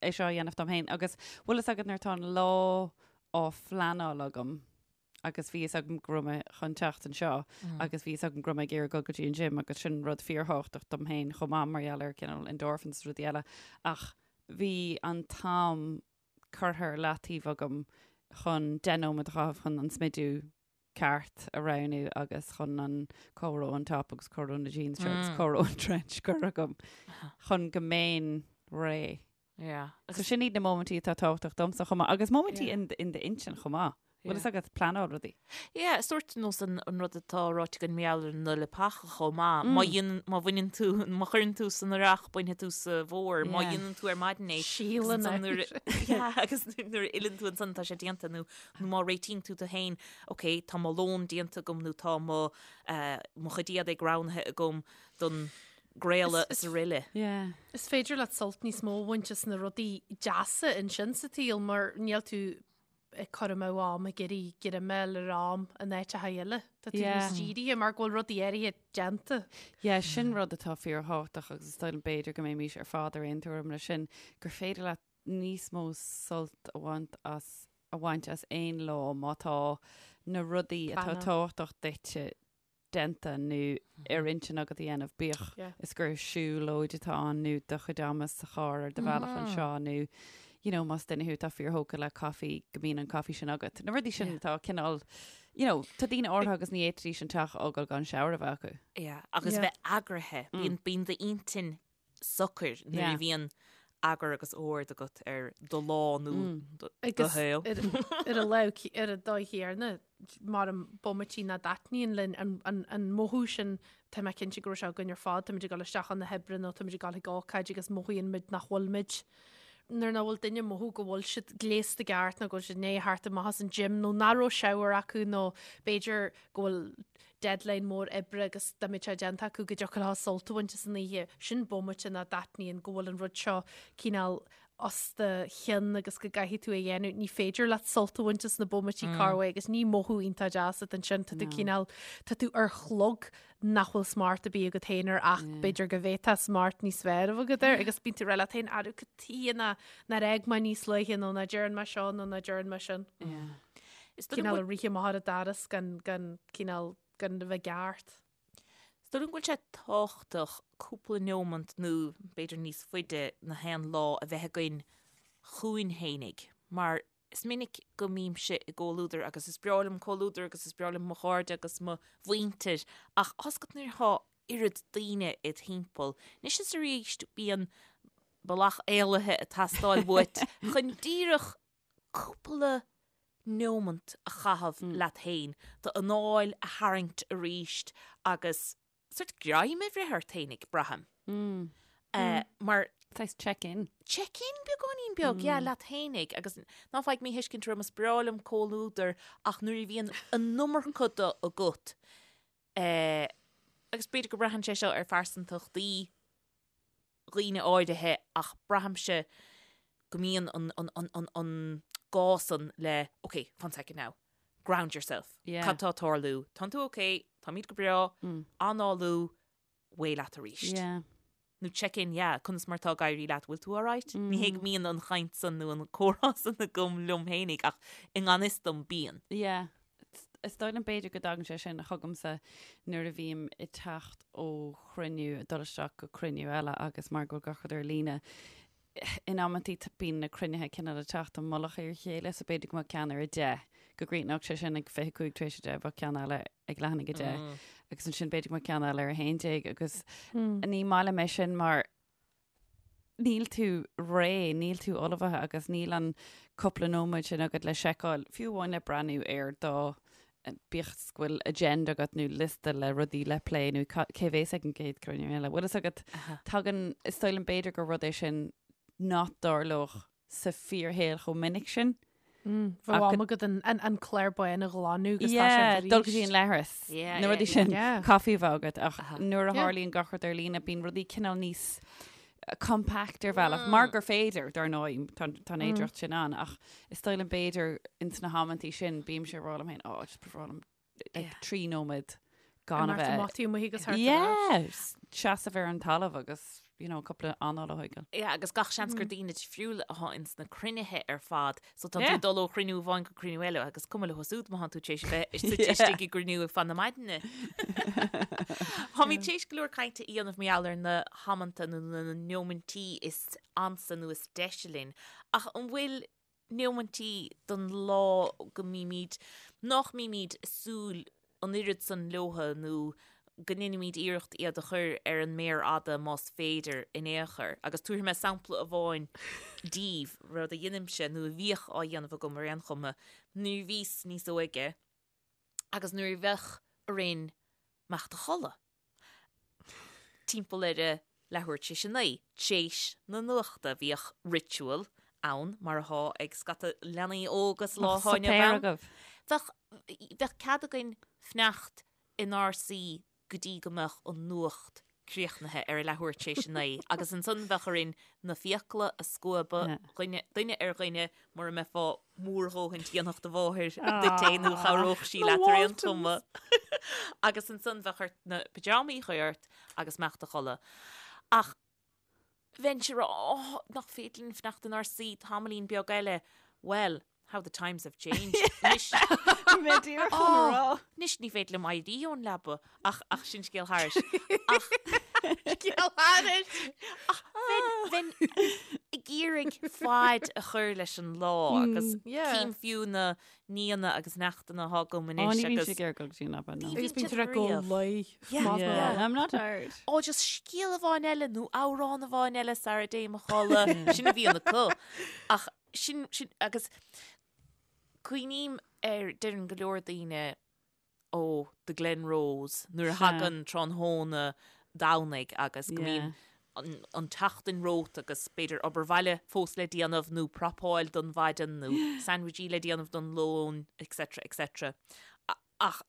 C: é seo a dhéanamh dom féin. Agus bhfuil fhios agat nuair atá an lá á phleanáil agam agus bhí fhios agam go raibh mé chun teacht anseo agus bhí fhios agam go raibh mé ag iarraidh dul go dtí an gym agus sin rud fíorthábhachtach dom féin chomh maith mar gheall ar cineál endorphins is rudaí eile. Ach bhí an t-am curtha ar leataobh agam chun 10 nóiméad a chaitheamh chun an smidiú ceart a roghnú agus chun an cá raibh an top agus cá raibh na jeans seo agus cá raibh an trench curtha agam chun go mbeinn réidh.
B: Yeah.
C: So sin iad na móimintí atá tábhachtach domsa chomh maith agus móimintí
B: Yeah.
C: in in d'intinn chomh maith. Bhfuil fhios agat pleanáil rudaí.
B: Yeah, sórt nós an an rud atá ráite againn mar gheall ar na leapacha chomh maith. Má dhéanann, má bhaineann tú, má chuireann tú san earrach, bainfidh tú sa bhfómhar. Má
C: Yeah.
B: dhéanann tú ar maidin é, agus
D: Síleann
B: ansan
D: é.
B: nuair a- Yeah, agus nuair a fhilleann tú ansan tá sé déanta nó nó má réitíonn tú tú féin, ok, tá mo lón déanta agam nó tá mo eh, mo chuid éadaigh roghnaithe agam don gcraoladh
D: Is-
B: is araile.
C: Yeah.
D: Is féidir leat sult níos mó a bhaint as na rudaí deasa ansin sa tsaol mar níl tú ag cur amú am ag iarraidh greimeáil ar am in áiteacha eile. Tá tú
C: Yeah.
D: níos dírithe mar go bhfuil rudaí áirithe déanta.
C: Yeah, sin rud atá fíorthábhachtach agus is dóigh liom b'fhéidir go mbeimis ar fad ar aon tuairim leis sin, gur féidir leat níos mó sult a bhaint as a bhaint as aon lá má tá na rudaí atá
D: Pleanáil.
C: tábhachtach duitse déanta nó ar intinn agat a dhéanamh, bíodh
D: Yeah.
C: is gur siúlóid atá ann nó do chuid ama sa charr ar do bhealach anseo nó you know, más duine thú atá fíorthógtha le caife go mbíonn an caife sin agat. Na rudaí sin atá cineál, you know, tá daoine áirithe agus ní fhéadfaidís an teach a fhágáil gan shower a bheith acu.
B: Yeah, agus
D: Yeah.
B: bheith eagraithe. Bíonn bíonn d'intinn socair nuair
C: Yeah.
B: a bhíonn eagar agus ord agat ar do lá nó do
D: Agus
B: shaol.
D: ar ar an lámh ar an dóigh chéanna mar an bomaití nach dtaitníonn linn an, an, an mothú sin tá mé cinnte go raibh sé againn ar fad, táimid ag dul isteach chun na hoibre nó táimid ag dul chuig ócáid agus mothaíonn muid nach bhfuil muid nuair nach bhfuil duine ag mothú go bhfuil siad gléasta i gceart nó go bhfuil siad i ndiaidh theacht amach as an gym nó nach raibh shower acu nó b'fhéidir go bhfuil deadline mór oibre agus dá mbeadh sé déanta acu go dtiocfadh leo sult a bhaint as an oíche. Sin bomaite nach dtaitníonn go bhfuil an rud seo cineál os do chionn agus go gcaithfidh tú é a dhéanamh. Ní féidir leat sult a bhaint as na bomaití corruair agus ní mothú iontach deas atá ansin. Tá tú cineál, tá tú ar chlog nach bhfuil smacht ar bith agat féin air ach b'fhéidir go bhféadfá smacht níos fearr a bheith agat air agus bíonn tú ag rá leat féin arú cad tuighe nár fhág mé níos luaithe nó nach dtearn mé seo nó nach dtearn mé sin.
B: Is dóigh liom
D: Cineál ag rith amach ar an doras gan, gan, cineál, gan a bheith ceart.
B: Is dóigh liom go bhfuil sé tábhachtach cúpla neomant nó b'fhéidir níos faide na haon lá a bheith againn chugainn fhéinig mar is minic go mbímse i gcomhluadar agus is breá liom comhluadar agus is breá liom mo chairde agus mo mhuintir ach tá a fhios agat nuair atá oiread daoine id thimpeall, anois is arís bíonn bealach éalaithe ag teastáil uait chun díreach cúpla neomant a chaitheamh leat féin, d'anáil a tharraingt arís agus sort greim a bhreith ort fhéinig, braithim. Mar.
C: Saghas check-in.
B: Check-in beagáinín beag, yeah, leat fhéinig agus ná faigh míthuiscint orm, is breá liom comhluadar ach nuair a bhíonn an iomarca de agat, agus b'fhéidir go mbraitheann sé seo ar phearsantachtaí dhaoine áirithe ach braithimse go mbíonn an, an, an, an, an gá san le ok, one second now, ground yourself.
C: Yeah.
B: Cad tá ag tarlú? Tánn tú ok, táimid go breá, análú, away leat arís.
C: Yeah.
B: Nó check in, yeah, conas mar tá ag éirí leat, bhfuil tú alright? Ní hé go mbíonn an chaint san nó an comhrá san agam liom fhéinig ach i ngan fhios dom bíonn.
C: Yeah. Is dóigh liom b'fhéidir go dtagann sé sin chugamsa nuair a bhím ag teacht ó chruinniú, ag dul isteach go cruinniú eile agus mar go bhfuil gach rud ar líne, in amantaí bíonn na cruinnithe cineál ag teacht i mullach ar a chéile so b'fhéidir go mbeadh ceann ar a 10, go gcríochnódh sé sin ag 25 tar éis a 10, bheadh ceann eile ag leath i ndiaidh a 10 agus ansin b'fhéidir go mbeadh ceann eile ar a 11 agus ní maith liom é sin mar níl tú réidh, níl tú ullmhaithe agus níl an cúpla nóiméad sin agat le seiceáil, fiú amháin le breathnú ar do, bíodh is go bhfuil agenda agat nó liosta le rudaí le plé nó cé bhéas ag an gcéad cruinniú eile. Bhfuil fhios agat, tagann, is dóigh liom b'fhéidir gur rud é sin nach dtarlódh sa fíorshaol chomh minic sin.
D: Bheadh am agat an clár bán a ghlanadh agus tá sé
C: arís. Dul go dtí an leithreas. Na rudaí sin, caife a bheith agat ach nuair a tharlaíonn gach rud ar líne bíonn rudaí cineál níos compact ar bhealach, mar gur féidir, dar ndóigh, tá an fhéidearthacht sin ann ach is dóigh liom b'fhéidir ins na hamantaí sin bímse ag rá liom féin, oh, just ba bhreá liom like, 3 nóiméad gan a bheith.
D: Amach amuigh agus thart
C: ar ais. Seasamh ar an talamh agus, you know, cúpla anáil a thógáil.
B: Yeah, agus gach seans gur daoine difriúla atá ins na cruinnithe ar fad, so tá tú ag dul ó chruinniú amháin go cruinniú eile agus cuma leo siúd má tá tú tar éis a bheith suite istigh i gcruinniú ar feadh na maidine. Táimid tar éis go leor cainte a dhéanamh mar gheall ar na hamanta nó na neomaintí is ansa nó is deise linn, ach an bhfuil neomaintí don lá go mbímid, nach mbímid ag súil an oiread san leotha nó go ndéanaimid iarracht iad a chur ar an méar fhada más féidir in aon chor. Agus tabharfaidh mé sampla amháin daoibh, rud a dheinimse, nó a bhíodh á dhéanamh agam ar aon chuma, nuair a bhíos níos óige agus nuair a bheadh orainn imeacht a chodladh. Timpeall ar a leathuair tar éis a 9, tar éis na nuachta, bhíodh ritual ann, mar athá ag scata leanaí óga sa lá atá inniu ann. Bheadh, bheadh cead againn fanacht inár suí go dtí go mbeadh an nuacht críochnaithe ar a leathuair tar éis a 9 agus ansan bheadh orainn na fiacla a scuabadh, dhuine, duine ar dhuine, mura mbeifeá mór dhóthain dhéanfadh do mháthair duit é nó chabhródh sí leat ar aon chuma. Agus ansan bheadh ort na pyjamaí a chur ort agus imeacht a chodladh. Ach bheinnse ag rá, oh, nach féidir linn fanacht inár suí tamaillín beag eile. Well, how the times have changed. Anois,
C: Mé díreach chun a rá.
B: anois ní féidir liom éirí ón leaba ach, ach sin scéal thairis. Ach
D: Scéal thairis!
B: ach bheinn, bheinn ag. ag iarraidh faid a chur leis an lá agus
D: Yeah.
B: cím fiú na nianna agus neachtanna atá agam
C: Ó,
B: anois
C: ní bhíonn
B: agus
C: sé ag iarraidh dul go dtí an leaba, no.
B: Ní
D: Agus
B: bhíonn
D: bíonn
B: siad
D: tú ag go
B: riamh.
D: luí.
B: Yeah.
D: Más
C: Yeah,
D: maith.
C: I'm not tired.
B: Ó, just scéal amháin eile nó amhrán amháin eile sara dtéim a chodladh. Sin a bhíonn acu. Ach sin, sin, agus cuimhním ar, deireann go leor daoine, ó, the Glen Rose, nuair a
C: Sea.
B: thagann tráthnóna Domhnaigh agus go mbíonn
C: Yeah.
B: an, an tseachtain romhat agus b'fhéidir obair bhaile fós le déanamh nó prapáil don mhaidin nó sandwichí le déanamh don lón, etc, etc. A- Ach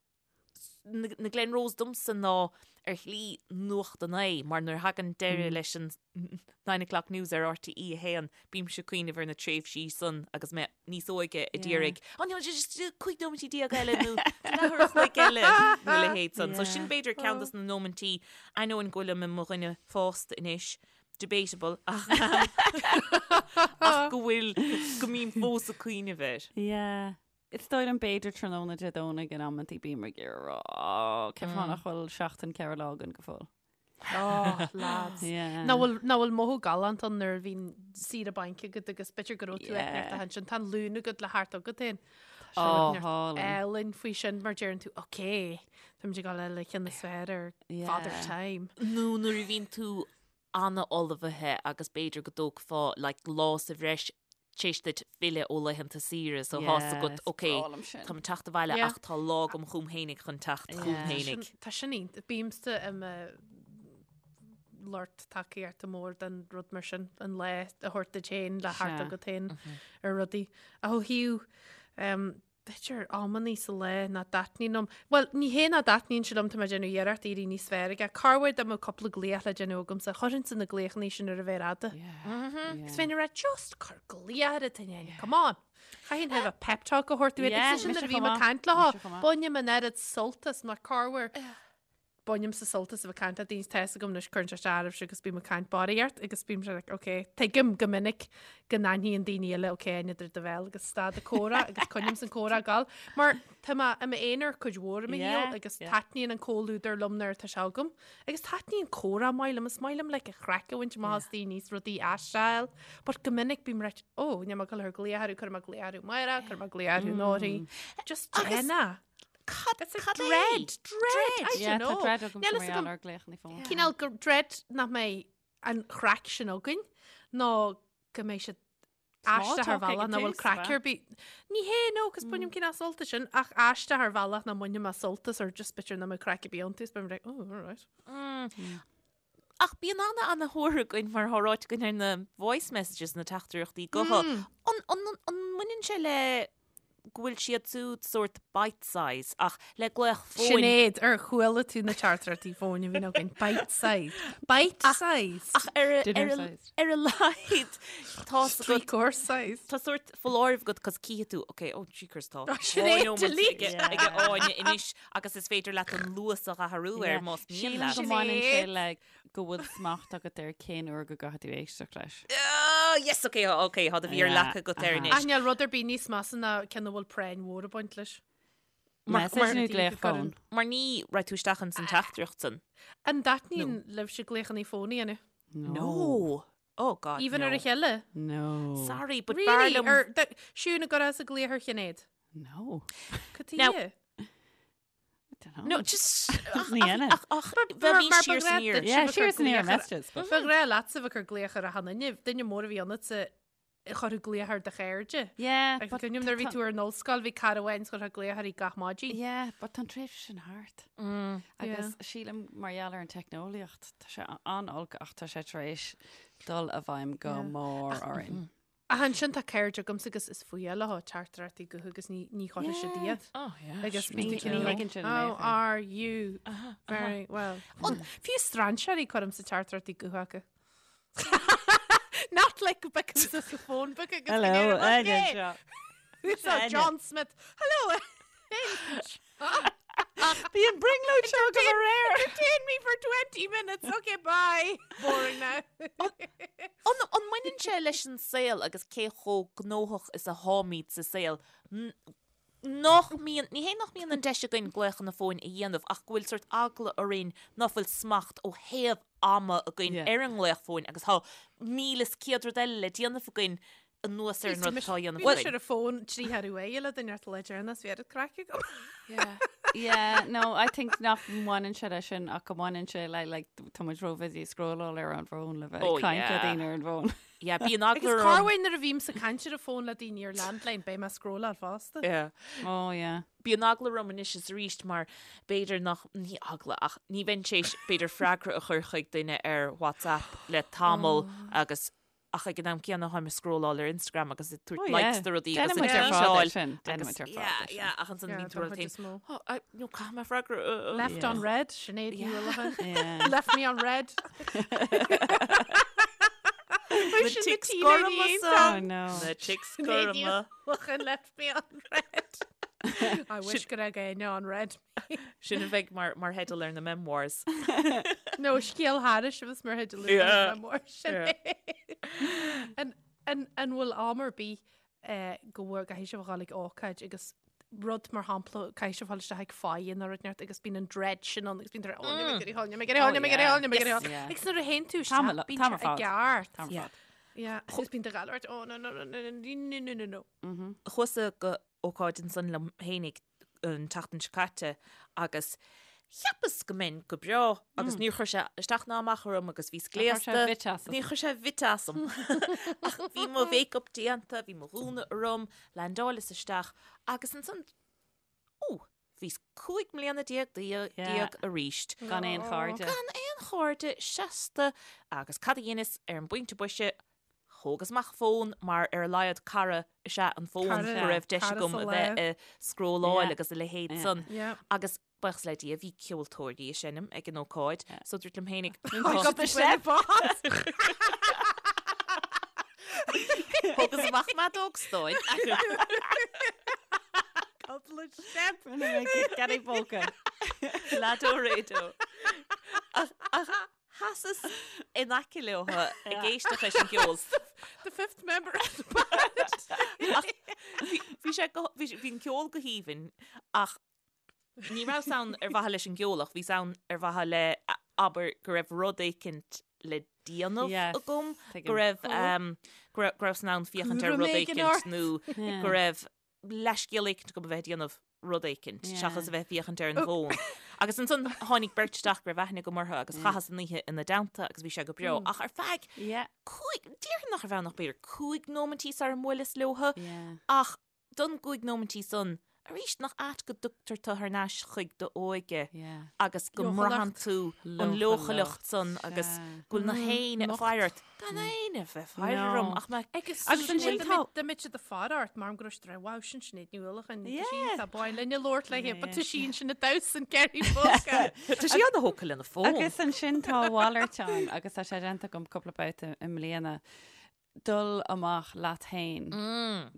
B: na, na Glen Rose domsa ná ar shlí nuacht an lae, mar nuair a thagann deireadh leis an Nine O'Clock News ar RTÉ 1, bímse ag cuimhneamh ar na tréimhsí san agus mé níos óige a d'iarraidh, oh no, just 15 nóimintí eile nó leathuair a chloig eile nó a leithéid san. So sin b'fhéidir ceann dos na nóimintí, ainneoin go bhfuilim i mo dhuine fásta anois, debatable, ach ach go bhfuil, go mbím fós ag cuimhneamh air.
C: Yeah. Is dóigh liom b'fhéidir tráthnóna Dé Domhnaigh in amantaí bím ag iarraidh a rá, oh, cén fáth nach bhfuil seachtain 4 lá againn go fóill.
D: Oh, lads.
C: Yeah.
D: Nach bhfuil, nach bhfuil mothú galánta ann nuair a bhíonn saoire bainc agat agus b'fhéidir go raibh tú ag neart
C: Yeah.
D: a sin, tá an Luan agat le theacht agat féin.
C: Oh, hálainn.
D: Álainn faoi sin mar deireann tú, ok, táimid ag dul le ceann is fearr ar
C: Yeah.
D: Father Time.
B: Nó nuair a bhíonn tú an-ullmhaithe agus b'fhéidir go dtógfá like lá sa bhreis tar éis duit filleadh ó laethanta saoire so tá's agat
C: Yes,
B: ok
C: breá liom sin.
B: táim ag teacht abhaile
D: Yeah.
B: ach tá lá agam chugam fhéinig chun teacht chugam
C: Yeah.
B: fhéinig.
D: Sin- Tá sin iontach. Bímse i mo lucht tacaíochta mór den rud mar sin, an lá a thabhairt duit féin le theacht
C: Sea.
D: agat féin ar rudaí. Ach ó thaobh um, b'fhéidir amannaí sa lá nach dtaitníonn liom. Bhuel, ní hé nach dtaitníonn sé liom, tá mé ag déanamh iarracht éirí níos fearr aige. Corruair dá mbeadh cúpla glaoch le déanamh agamsa, chuirfinnse na glaochannaí sin ar an mhéar fhada. Is bheinn ag rá, just cuir glaoch ar an duine, come on! Chaithfinn have a pep talk a thabhairt dúinn. Agus sin nuair a bhím ag caint leo, bainim an oiread sult as mar corruair. Bainimse sult as a bheith ag caint le daoine, tá's agam anois cuireann sé isteach oraibhse agus bím ag caint barraíocht agus bím sé like ok, tuigim go minic go n-aithníonn daoine eile ok n'fheadar do bhéal agus stad an comhrá agus coinním an comhrá ag gabháil mar tá mé i m'aonar cuid mhór i mo shaol agus taitníonn an comhluadar liom nuair atá sé agam agus taitníonn comhrá maith liom, is maith liom like an chraic a bhaint amach as daoine is rudaí a aisteáil but go minic bím right oh níl mé ag dul a chur glaoch orthu, cuirfidh mé glaoch orthu amárach, cuirfidh mé glaoch orthu anóirí just déan é.
B: Cad
D: It's a
B: cad é?
D: dread, dread, I
C: Yeah,
D: don't know.
C: tá dread agam
D: Níl
C: mar
D: fhios
C: gheall
D: agam
C: ar glaochanna fóin.
D: cineál gur dread nach mbeidh an chraic sin againn nó go mbeidh siad
C: Small
D: aisteach ar
C: talk ag
D: bhealach
C: an
D: nach bhfuil
C: tús,
D: craic
C: ba?
D: ar bith. Ní hé no, cos bainim cineál sult as sin ach aisteach ar bhealach nach mbainfidh mé sult as or just b'fhéidir nach mbeidh craic ar bith iontu is beidh mé like, oh, all right.
B: Ach bíonn ana ana thóir againn mar atá ráite againn ar na voice messages na teachtaireachtaí gutha. An, an, an, an mbaineann sé le go bhfuil siad siúd sórt bite size ach le glaoch fóin.
D: Sinéad, ar chuala tú na teachtaireachtaí fóin a bhíonn againn? Bite size. Bite size.
B: Ach ar a,
C: Dinner
B: ar a,
C: size.
B: ar a laghad tá
D: Three course size.
B: Tá sórt foláireamh agat cos cífidh tú, ok, oh jeekers tá.
D: Sinéad, delete.
B: Ag Áine anois agus is féidir leat an luas a athrú air más mian
C: Sílim
B: leat.
C: go mbaineann sé
D: Sinéad.
C: le go bhfuil smacht agat ar cén uair go gcaithfidh tú éisteacht leis.
B: Oh, yes, ok, ok, tá do mhéar
C: Yeah,
B: leagtha agat air
C: aha.
B: anois.
D: Ach níl rud ar bith níos measa ná ceann a bhfuil práinn mhór ag baint leis.
B: Mar-
C: Message
B: mar-
C: nó glaoch fóin.
B: Mar ní raibh tú isteach ins an teachtaireacht san.
D: An dtaitníonn libhse glaochanna fóin a dhéanamh?
B: No. Oh God,
D: Even
B: no.
D: ar a chéile?
C: No.
B: Sorry, but b'fhearr
D: Really?
B: liom
D: Ar Siún an gcuirfeása glaoch ar Shinéad?
C: No.
D: Cad
B: Now-
D: tuighe?
C: I don't know.
B: No, just
C: Ní dhéanann.
B: ach ach bheith
D: mar
B: siar
D: ba
B: san
D: ghnáth
B: iar.
D: duit.
C: Yeah,
D: Sibh
C: siar
D: a
C: san iar
D: chur glaoch ar-
C: messages. but-
D: Ba ghnách leatsa bheith ag cur glaoch ar achan duine, duine mór a bhí ionatsa chuirfeá glaoch ar do chairde.
C: Yeah,
D: Agus
C: but
D: cuimhním nuair a bhí tú ar an ollscoil, bhí cara amháin is chuirfeá glaoch uirthi gach maidin.
C: Yeah, but tá an tréimhse sin thart. Agus sílim mar gheall ar an teicneolaíocht, tá sé an-olc ach tá sé tar éis dul i bhfeidhm go mór orainn.
D: Ach ansin tá cairde agamsa agus is fuath leo teachtaireachtaí gutha agus ní ní chuirfidh siad iad.
B: Oh, yeah.
D: Agus
C: Ní
D: bíonn tú
C: ní
D: cineál
C: thuigeann sin
D: How
C: mé.
D: are you? Very well. Fiú strainséirí cuirimse teachtaireachtaí gutha acu. Not like because it's a phone book agus
C: Hello,
D: okay.
C: Áine seo.
D: So John Smith. Hello.
C: Bhí an brionglóid seo go aréir.
D: Entertain me for 20 minutes. Okay, bye. Boring now.
B: An an mbaineann sé leis an saol agus cé chomh gnóthach is a tháimid sa saol? Nach mbíonn, ní hé nach mbíonn an deis againn glaochanna fóin a dhéanamh ach go bhfuil sórt eagla orainn ná fuil smacht ó thaobh ama againn ar an nglaoch fóin agus tá 1100 rud eile le déanamh againn anuas ar an rud atá á dhéanamh
D: Bhí mise
B: againn.
D: ar an bhfón trí thar uair le duine ort le deireanas, bhí oiread craic agam.
C: Yeah. Yeah, no, I think nach mbaineann sé leis sin ach go mbaineann sé le like, tá muid ró-busy ag scrolláil ar an bhfón le bheith
B: Oh,
C: ag caint le
B: yeah.
C: daoine ar an bhfón.
B: Yeah, bíonn eagla
D: Agus
B: orm.
D: corruair nuair a bhímse ag caint ar an bhfón le daoine ar landline, beidh mé ag scrolláil fosta.
B: Yeah.
C: Oh, yeah.
B: Bíonn eagla orm anois is arís mar b'fhéidir nach, ní eagla, ach ní bheinn tar éis b'fhéidir freagra a chur chuig duine ar WhatsApp le tamall agus ach ag an am céanna táim ag scrolláil ar Instagram agus ag tabhairt
C: Oh,
B: likes
C: yeah.
B: do rudaí agus
C: Déanann
B: ag
C: muid ar fad é
B: tweetáil
C: sin. Déanann
B: agus
C: muid ar fad
B: yeah,
C: é sin.
B: yeah, ach ansan
D: Yeah,
B: bíonn tú
D: don
B: rud
D: chuid is mó.
B: Oh, I, no, caithfidh mé freagra. uh, uh.
D: Left
C: Yeah.
D: on read, Sinéad Ní
B: Yeah.
D: Uallacháin.
C: Yeah.
D: Left me on read.
B: Na chicks gorma
C: Oh,
B: san.
C: no.
B: Na chicks
D: Sinéad Ní
B: gorma.
D: Uallacháin left me on read. I wish go raibh éinne on read.
B: Sin a bheidh mar, mar theideal ar na memoirs.
D: No, scéal thairis a bheas mar theideal ar
B: Yeah.
D: na memoirs. Sin
B: Yeah.
D: é. An, an, an bhfuil am ar bith eh, go bhfuil caithfidh sibh a dhul ag ócáid agus rud mar shampla caithfidh sibh a dhul isteach ag faire nó rud inteacht agus bíonn an dread sin ann agus bíonn tú oh, níl mé ag iarraidh dhul, níl mé ag iarraidh dhul, níl mé ag iarraidh dhul, níl mé ag iarraidh dhul.
C: Yeah.
D: Agus nuair a théann tú
C: Tá
D: isteach, bíonn
C: tá
D: sé i gceart.
C: Tá
B: Yeah.
D: Yeah, agus bíonn do ghalart, oh no no no no no no no no no.
B: Chuas-sa go ócáid ansan liom fhéinig an tseachtain seo caite agus cheapas go mbeinn go breá agus níor chuir sé isteach ná amach orm agus bhíos gléasta. Níor chuir sé bit asam. Ach bhí mo mhéiceap déanta, bhí mo ghúna orm, landáileas isteach agus ansan, ó, bhíos 15 mbliana déag arís.
C: Gan aon chairde.
B: Gan aon chairde seasta agus cad a dheineas ar an bpointe boise, Thógas amach fón mar ar a laghad cara is ea an fón
D: Cara,
B: go raibh deis
D: cara
B: agam
D: sa
B: a
D: lá.
B: bheith ag scrolláil
C: Yeah.
B: agus a leithéid
C: Yeah.
B: san.
D: Yeah.
B: Agus buíochas le Dia bhí ceoltóirí ag seinm ag an ócáid so dúirt liom fhéinig
D: Pick up the step.
B: Thógas amach m'fheadóg stáin.
D: Couple of step.
C: Get a póca.
B: Lado rédo. Ach ach Sheasas in aice leo ag éisteacht leis an gceol.
D: The fifth member of the band.
B: Ach bhí sé go, bhí bhí an ceol go haoibhinn ach ní rabhas ann ar mhaithe leis an gceol ach bhíos ann ar mhaithe le, abair, go raibh rud éicint le déanamh
C: Yes,
B: agam,
C: tuigim.
B: go raibh, go raibh, go rabhas in ann féachaint ar
D: Cúram
B: rud
D: éigin
B: éicint
D: ort.
B: nó go raibh leithscéal éicint agam a bheith ag déanamh rud éicint, seachas a bheith ag féachaint ar an bhfón. Agus ansan tháinig beirt isteach go raibh aithne agam orthu agus chaitheas an oíche ina dteannta agus bhí sé go breá. Ach ar feadh cúig, déarfainn nach raibh ann ach b'fhéidir cúig nóimintí sara mbuaileas leothu, ach don gcúig nóimintí san, arís, nach ait go dtugtar tú thar n-ais chuig d'óige agus go mbraitheann tú an leochaileacht san agus go bhfuil nach éinne ag faire ort. Gan éinne a bheith ag faire orm ach mé.
D: Agus
C: Agus ansin tá-
D: Dá mbeadh siad ag faire ort mar go raibh siad ag rá, wow, sin Sinéad Ní Uallacháin, tá sí tá báin linn ag labhairt léi, but tá sí ansin ag damhsa an Kerry Polka.
B: Tá sí ana-thógtha lena fón.
C: Agus ansin tá a mhalairt ann agus tá sé déanta agam cúpla babhta i mbliana, dul amach leat féin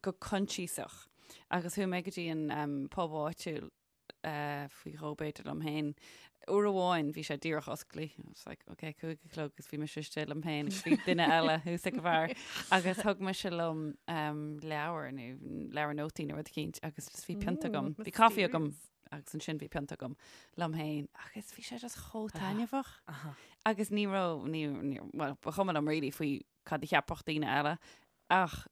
C: go coinsiasach. Agus chuaigh mé go dtí an pub áitiúil faoi dhó b'fhéidir liom féin. Uair amháin bhí sé díreach osclaithe. I was like, ok, cúig a chlog agus bhí mise istigh liom féin agus bhí duine eile thuas ag an bheár. Agus thug mise liom leabhar nó leabhar nótaí nó rud eicínt agus just bhí pionta agam. Bhí caife agam agus ansin bhí pionta agam liom féin agus bhí sé just chomh taitneamhach. Agus ní raibh, ní, ní, well, ba chuma liom really faoi cad a cheapfadh daoine eile ach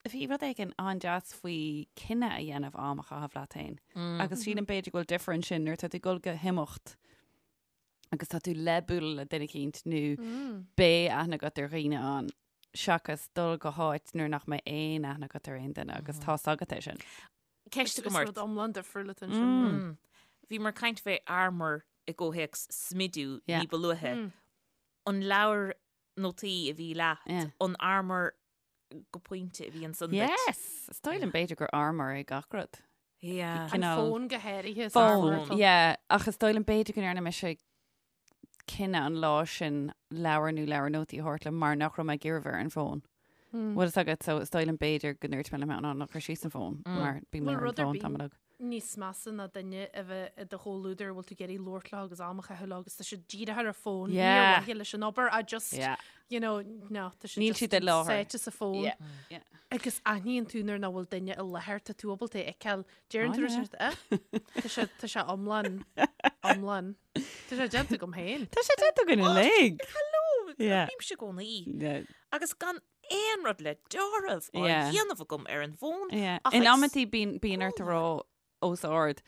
C: Bhí rud éigin an-deas faoi cinneadh a dhéanamh am a chaitheamh leat féin. Agus sílim b'fhéidir go bhfuil difear ansin nuair atá tú ag dul go himeacht agus tá tú le bualadh le duine eicínt nó beidh aithne agat ar dhaoine ann seachas dul go háit nuair nach mbeidh aon aithne agat ar aon duine agus tá's agat é sin.
B: Ceist agam
D: Is
B: ort.
D: rud iomlán difriúil atá ansin.
B: Bhíomar ag caint fé armour i gcomhthéacs smidiú
C: Yeah.
B: ní ba luaithe. An leabhar nótaí a bhí leat,
C: Yeah.
B: an armour go pointe a bhí ansan duit.
C: Yes! Is dóigh liom b'fhéidir gur armour é gach rud.
B: Yeah.
D: An
C: Cineál-
D: fón go háirithe. is
C: Fón,
D: armour atá.
C: yeah. Ach is dóigh liom b'fhéidir go ndearna mise cinneadh an lá sin leabhar nó leabhar nótaí a thabhairt liom mar nach raibh mé ag iarraidh bheith ar an bhfón. Bhfuil fhios agat so is dóigh liom b'fhéidir go ndúirt mé liom féin, ná cuir síos an fón mar bím
D: Bhfuil
C: ar an
D: rud ar
C: bhfón
D: bith
C: tamall uaidh.
D: níos measa ná duine a bheith i do chomhluadar a bhfuil tú ag iarraidh labhairt leo agus am a chaitheamh leo agus tá siad dírithe ar an bhfón, ní ar
C: Yeah.
D: mhaithe leis an obair, I just,
C: Yeah.
D: you know, no, tá siad
C: Níl
D: just
C: siad i láthair.
D: sáite sa fón.
C: Yeah. Yeah.
D: Agus aithníonn tú nuair nach bhfuil duine i láthair, tá tú ábalta é a fheiceáil. Deireann tú
C: Oh, yeah.
D: rud eh? Tá sé tá sé iomlán iomlán. Tá sé déanta agam féin.
C: Tá sé déanta againn uilig.
B: Hello,
C: Yeah.
B: bímse i gcónaí.
C: Yeah.
B: Agus gan aon rud le deáramh á
C: Yeah.
B: dhéanamh agam ar an bhfón.
C: Yeah.
B: Ach
C: In
B: ag
C: amantaí bíonn bíonn ort a rá os ard,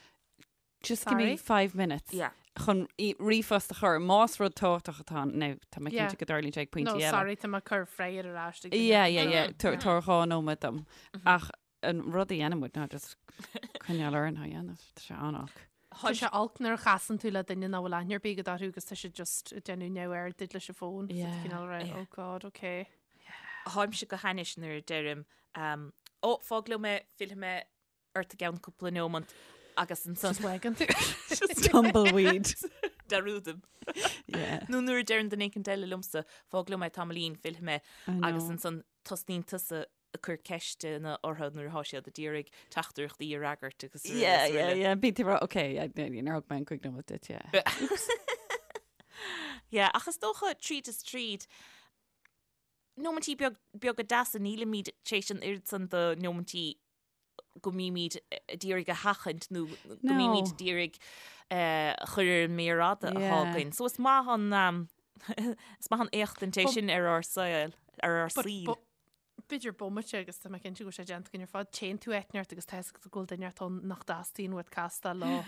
C: just give me
D: Sorry?
C: five minutes
B: Yeah.
C: chun í- ríomhphost a chur más rud tábhachtach atá ann. Now, tá mé
D: Yeah.
C: cinnte go dtarlaíonn sé ag pointí
D: No,
C: eile.
D: sorry, tá mé ag cur freagra ar ais ag duine.
C: Yeah, yeah, yeah. Tabhair tabhair dhá nóiméad dom. Ach an rud a dhéanann muid ná just coinneáil orainn á dhéanamh. Tá sé an-olc.
D: Tá sé olc nuair a chasann tú le duine nach bhfuil aithne ar bith agat orthu agus tá siad just ag déanamh neamhaird duit leis an bhfón. So
C: Yeah.
D: cineál rá,
B: Yeah.
D: oh God, okay.
B: Táimse go hainnis nuair a deirim, um, ó, fág liom é, fillfidh mé ort i gceann cúpla nómant agus ansan
D: Just wagan tú.
C: Tumbleweed.
B: dearúdaim.
C: Yeah.
B: Nó nuair a deireann duine éicint eile liomsa, fág liom é tamaillín, fillfidh mé
C: I
B: agus
C: know.
B: ansan tosnaíonn tusa ag cur ceisteanna orthu nuair atá siad ag iarraidh teachtaireachtaí a fhreagairt agus araile
C: Yeah,
B: is
C: yeah,
B: araile.
C: yeah. Bíonn tú ag rá, okay, yeah, níor thug mé an cúig nóiméad duit, yeah.
B: Yeah, ach is dócha tríd is tríd, nóimintí beag, beaga deasa, nílimid tar éis an oiread san de nóimintí go mbímid ag iarraidh a sheachaint nó go
C: No.
B: mbímid ag iarraidh a chur ar an méar fhada atá
C: Yeah.
B: againn. So is maith an, um, is maith an éachtaint é
D: But-
B: sin ar ár saol, ar ár
D: But-
B: saol.
D: but- B'fhéidir bomaite agus tá mé cinnte go bhfuil sé déanta againn ar fad. Téann tú áit inteacht agus tá fhios agat go bhfuil duine inteacht ann nach dteastaíonn uait castáil leo.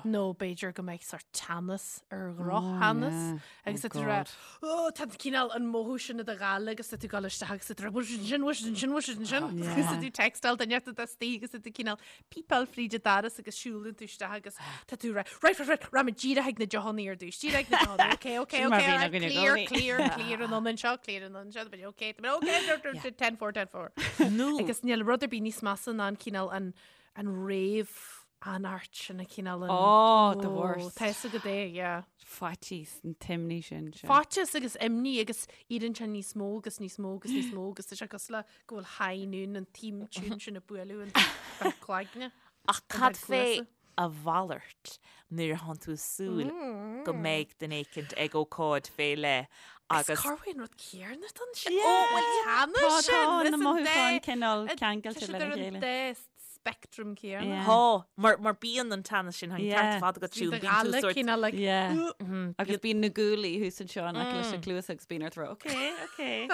D: Nó b'fhéidir go mbeidh sórt teannas ar dhrochtheannas. Agus
C: Oh
D: tá tú rá,
C: God.
D: "Ó, tá cineál an mothú sin i do ghála agus tá tú ag dul isteach agus tá tú rá, bhfuil siad ansin, bhfuil siad ansin, bhfuil siad ansin. Agus tá tú textáil duine inteacht atá istigh agus tá tú cineál pípeáil fríd an doras agus siúlann tú isteach agus tá tú rá, right, right, right, rachaidh mé díreach ag na deochanna ar dtús, díreach ag na deochanna, okay, okay,
C: Sin mar
D: okay,
C: bhíonn
D: alright,
C: againn i
D: clear,
C: gcónaí.
D: clear, clear an ionann seo, clear an ionann seo, but okay, but okay, 10 4, 10 4.
B: Nó
D: Agus níl rud ar bith níos measa ná an cineál an an réamh-anairt sin a cineál an
C: Oh, the worst.
D: Tá fhios agat é, yeah.
C: Faitíos an t-imní sin. sin.
D: Faitíos agus imní agus éiríonn sé níos mó agus níos mó agus níos mó agus tá sé cosúil le go bhfuil high noon an theme tune sin ag bualadh an bheith cloigne.
B: Ach cad
D: bheith
B: fé
D: cluasa.
B: a mhalairt nuair atánn tú ag súil go mbeidh duine éicint ag ócáid fé leith
D: Agus
B: agus
D: cá bhfuil an rud céanna don sin?
C: Yeah.
D: Ó, bhfuil
C: Tá
D: teannas sin?
C: tá
D: Is
C: na
D: an
C: mothúcháin
D: dá-
C: cineál
D: Tá
C: ceangailte
D: siad
C: lena
D: ar an
C: chéile.
D: dá spectrum céanna.
C: Yeah.
B: Tá, mar mar bíonn an teannas sin an
C: Yeah.
B: ceart fad agat
D: Bhí
B: siún
D: do
B: bíonn tú
D: ghala
B: sórt
D: cineál like,
C: Yeah.
B: Mhm,
C: Agus bíonn na guaillí thuas anseo in aice leis na cluasa agus bíonn ort rá, okay, okay.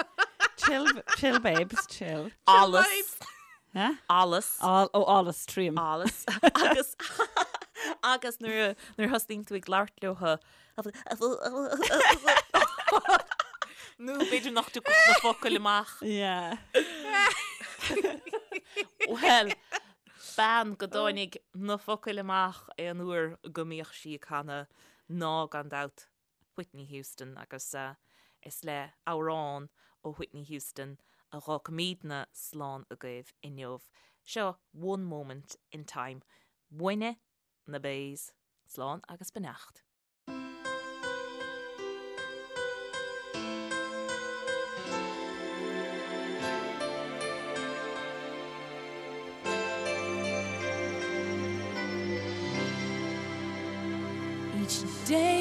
C: Chill, chill babes, chill.
B: allas
D: vibes.
C: Huh?
B: allas
C: All, ó, allas tríom.
B: allas agus agus nuair a- nuair a thosnaíonn tú ag labhairt leo nó b'fhéidir nach dtiocfadh na focail amach.
C: Yeah.
B: Well, bean go dtáinig na focail amach aon uair go mbíodh sí ag canadh ná gan dabht Whitney Houston agus is le amhrán ó Whitney Houston a dh'fhágfaimidne slán agaibh inniu. Seo One Moment in Time. Uainne, na Bays. Slán agus beannacht.
A: Each day.